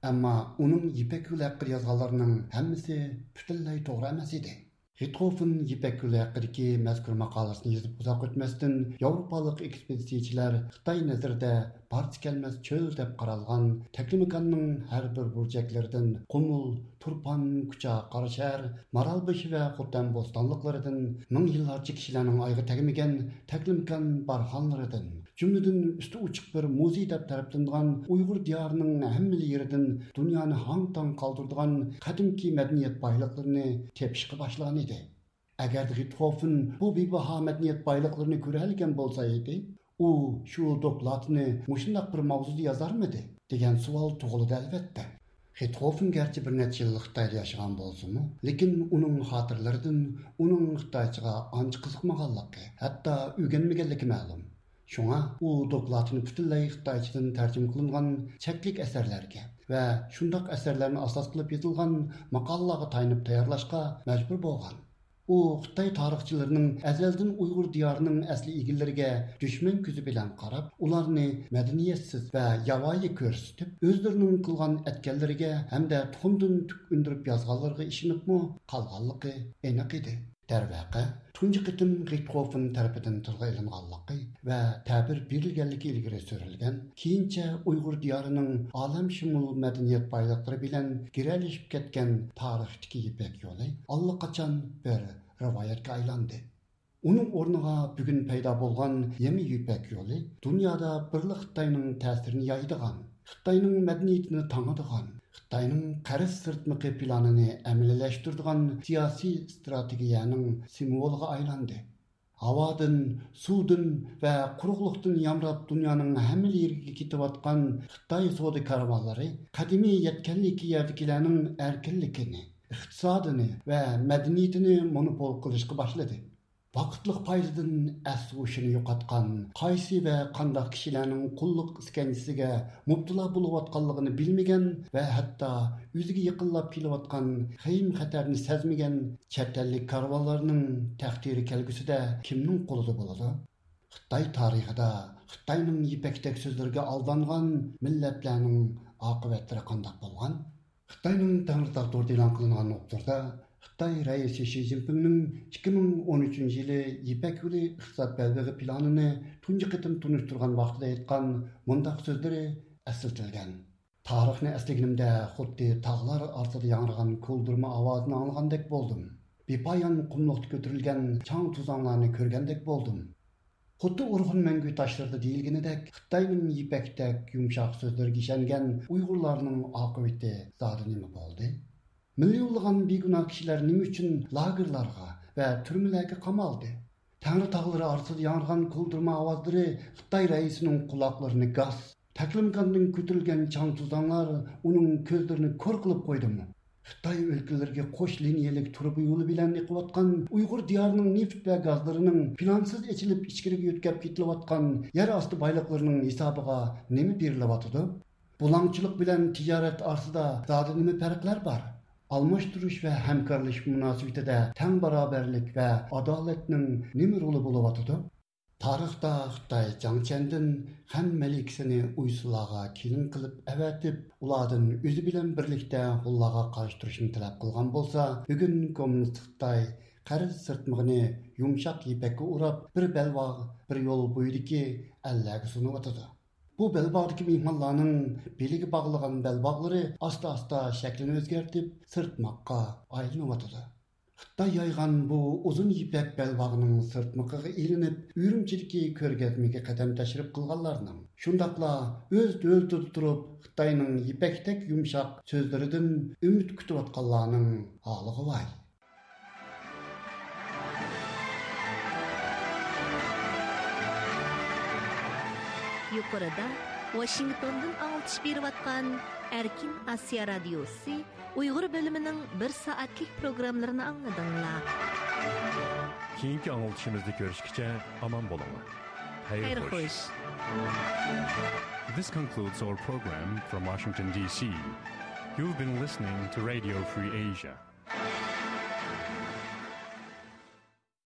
ئەمما ئۇنىڭ يىپەك يولى ھەققىدە يازغانلىرىنىڭ ھەممىسى پۈتۈنلەي توغرا ئەمەس ئىدى. رىتخوفېن يىپەك يولى ھەققىدىكى مەزكۇر ماقالىسىنى يېزىپ ئۇزاق ئۆتمەستىن، ياۋروپالىق ئېكسپېدىتسىيەچىلەر خىتاي نەزىرىدە بارسا كەلمەس چۆل دەپ قارالغان تەكلىماكاننىڭ ھەر بىر بۇرجەكلىرىدىن، قۇمۇل، تۇرپان، كۇچا، قاراشەھەر، مارالبېشى ۋە خوتەن بوستانلىقلىرىدىن، مىڭ يىللارچە كىشىلەرنىڭ ئايىغى تەگمىگەن تەكلىماكان بارخانلىرىدىن، جۈملىدىن ئۈستى ئوچۇق بىر مۇزېي دەپ تەرىپلىنىدىغان ئۇيغۇر دىيارىنىڭ ھەممىلا يېرىدىن دۇنيانى ھاڭ-تاڭ قالدۇرىدىغان قەدىمكى مەدەنىيەت بايلىقلىرىنى تېپىشقا باشلىغان ئىدى. ئەگەر رىتخوفېن بۇ بىباھا مەدەنىيەت بايلىقلىرىنى كۆرەلىگەن بولسا ئىدى، ئۇ شۇ دوكلاتىنى مۇشۇنداق بىر ماۋزۇدا يازارمىدى؟ دېگەن سوئال تۇغۇلىدۇ، ئەلۋەتتە. رىتخوفېن گەرچە بىر نەچچە يىل خىتايدا ياشىغان بولسىمۇ، لېكىن ئۇنىڭ خاتىرىلىرىدىن ئۇنىڭ خىتايچىغا ئانچە قىزىقمىغانلىقى، ھەتتا ئۆگەنمىگەنلىكى مەلۇم. شۇڭا ئۇ دوكلاتىنى پۈتۈنلەي خىتايچىدىن تەرجىمە قىلىنغان چەكلىك ئەسەرلەرگە ۋە شۇنداق ئەسەرلەرنى ئاساس قىلىپ يېزىلغان ماقالىلارغا تايىنىپ تەييارلاشقا مەجبۇر بولغان. ئۇ خىتاي تارىخچىلىرىنىڭ ئەزەلدىن ئۇيغۇر دىيارىنىڭ ئەسلى ئىگىلىرىگە دۈشمەن كۆزى بىلەن قاراپ، ئۇلارنى مەدەنىيەتسىز ۋە ياۋايى كۆرسىتىپ، ئۆزلىرىنىڭ قىلغان ئەتكەنلىرىگە ھەمدە تۇخۇمدىن تۈك ئۈندۈرۈپ يازغانلىرىغا ئىشىنىپمۇ قالغانلىقى ئېنىق ئىدى. دەرۋەقە، تۇنجى قېتىم رىتخوفېن تەرىپىدىن تىلغا ئېلىنغانلىقى ۋە تەبىر بېرىلگەنلىكى ئىلگىرى سۈرۈلگەن، كېيىنچە ئۇيغۇر دىيارىنىڭ ئالەمشۇمۇل مەدەنىيەت بايلىقلىرى بىلەن گىرەلىشىپ كەتكەن تارىختىكى يىپەك يولى ئاللىقاچان بىر رىۋايەتكە ئايلاندى. ئۇنىڭ ئورنىغا بۈگۈن پەيدا بولغان يېڭى يىپەك يولى دۇنيادا بىرلا خىتاينىڭ تەسىرىنى يايىدىغان، خىتاينىڭ مەدەنىيىتىنى تاڭىدىغان، خىتاينىڭ قەرز سىرتمىقى پىلانىنى ئەمەلىيلەشتۈرىدىغان سىياسىي ئىستراتېگىيەنىڭ سىمۋولىغا ئايلاندى. ھاۋادىن، سۇدىن ۋە قۇرۇقلۇقتىن يامراپ دۇنيانىڭ ھەممە يېرىگە كېتىۋاتقان خىتاي سودا كارۋانلىرى قەدىمىي يەتكەنلىكى يەردىكىلەرنىڭ ئەركىنلىكىنى، ئىقتىسادىنى ۋە مەدەنىيىتىنى مونوپول قىلىشقا باشلىدى. ۋاقىتلىق پايدىدىن ئەس-ھوشىنى يوقاتقان، قايسى ۋە قانداق كىشىلەرنىڭ قۇللۇق ئىسكەنجىسىگە مۇپتىلا بولۇۋاتقانلىقىنى بىلمىگەن ۋە ھەتتا ئۆزىگە يېقىنلاپ كېلىۋاتقان خېيىم-خەتەرنى سەزمىگەن چەت ئەللىك كارۋانلارنىڭ تەقدىرى كەلگۈسىدە كىمنىڭ قولىدا بولىدۇ؟ خىتاي تارىخىدا خىتاينىڭ يىپەكتەك سۆزلىرىگە ئالدانغان مىللەتلەرنىڭ ئاقىۋەتلىرى قانداق بولغان؟ خىتاينىڭ تەڭرىتاغ تورىدا ئېلان قىلىنغان ئوبزوردا خىتاي رەئىسى شى جىنپىڭنىڭ ئىككى مىڭ ئون ئۈچىنچى يىلى يىپەك يولى ئىقتىساد بەلبېغى پىلانىنى تۇنجى قېتىم تونۇشتۇرغان ۋاقتىدا ئېيتقان مۇنداق سۆزلىرى ئەسلىتىلگەن: «تارىخنى ئەسلىگىنىمدە خۇددى تاغلار ئارىسىدا ياڭرىغان كولدۇرما ئاۋازىنى ئاڭلىغاندەك بولدۇم. بىپايان قۇملۇقتا كۆتۈرۈلگەن چاڭ-توزاڭلارنى كۆرگەندەك بولدۇم.» خۇددى ئورخۇن مەڭگۈ تاشلىرىدا دېيىلگىنىدەك، خىتاينىڭ يىپەكتەك يۇمشاق سۆزلىرىگە ئىشەنگەن ئۇيغۇرلارنىڭ ئاقىۋىتى زادى نېمە بولدى؟ مىليونلىغان بىگۇناھ كىشىلەر نېمە ئۈچۈن لاگېرلارغا ۋە تۈرمىلەرگە قامالدى؟ تەڭرى تاغلىرى ئارىسىدا ياڭرىغان كولدۇرما ئاۋازلىرى خىتاي رەئىسىنىڭ قۇلاقلىرىنى گاس، تەكلىماكاندىن كۆتۈرۈلگەن چاڭ-توزانلار ئۇنىڭ كۆزلىرىنى كور قىلىپ قويدىمۇ؟ خىتاي ئۆلكىلىرىگە قوش لىنىيەلىك تۇرۇبا يولى بىلەن ئېقىۋاتقان ئۇيغۇر دىيارىنىڭ نېفىت ۋە گازلىرىنىڭ پىلانسىز ئېچىلىپ ئىچكىرىگە يۆتكەپ كېتىلىۋاتقان يەر ئاستى بايلىقلىرىنىڭ ھېسابىغا نېمە بېرىلىۋاتىدۇ؟ بۇلاڭچىلىق بىلەن تىجارەت ئارىسىدا زادى نېمە پەرقلەر بار؟ ئالماشتۇرۇش ۋە ھەمكارلىشىش مۇناسىۋىتىدە تەڭ باراۋەرلىك ۋە ئادالەتنىڭ نېمە رولى بولۇۋاتىدۇ؟ تارىختا خىتاي جاڭ چيەندىن خەن مەلىكىسىنى ئۇيسۇنلارغا كېلىن قىلىپ ئەۋەتىپ، ئۇلاردىن ئۆزى بىلەن بىرلىكتە ھونلارغا قارشى تۇرۇشنى تەلەپ قىلغان بولسا، بۈگۈن كوممۇنىست خىتاي قەرز سىرتمىقىنى يۇمشاق يىپەككە ئوراپ، بىر بەلباغ، بىر يول بويىدىكى ئەللەرگە سۇنۇۋاتىدۇ. بۇ بەلباغدىكى مېھمانلارنىڭ بېلىگە باغلىغان بەلباغلىرى ئاستا-ئاستا شەكلىنى ئۆزگەرتىپ، سىرتماققا ئايلىنىۋاتىدۇ. خىتاي يايغان بۇ ئۇزۇن يىپەك بەلباغنىڭ سىرتمىقىغا ئىلىنىپ، ئۈرۈمچىدىكى كۆرگەزمىگە قەدەم تەشرىپ قىلغانلارنىڭ، شۇنداقلا ئۆز دۆلىتىدە تۇرۇپ خىتاينىڭ يىپەكتەك يۇمشاق سۆزلىرىدىن ئۈمىد كۈتۈۋاتقانلارنىڭ ھالىغۇ ۋاي. يۇقىرىدا ۋاشىنگتوندىن ئاڭلىتىش بېرىۋاتقان ئەركىن ئاسىيا رادىيوسى ئۇيغۇر بۆلۈمىنىڭ بىر سائەتلىك پروگراممىلىرىنى ئاڭلىدىڭلار. كېيىنكى ئاڭلىتىشىمىزدا كۆرۈشكىچە ئامان بولۇڭلار. خەير خوش. This concludes our program from Washington, D C. You've been listening to Radio Free Asia.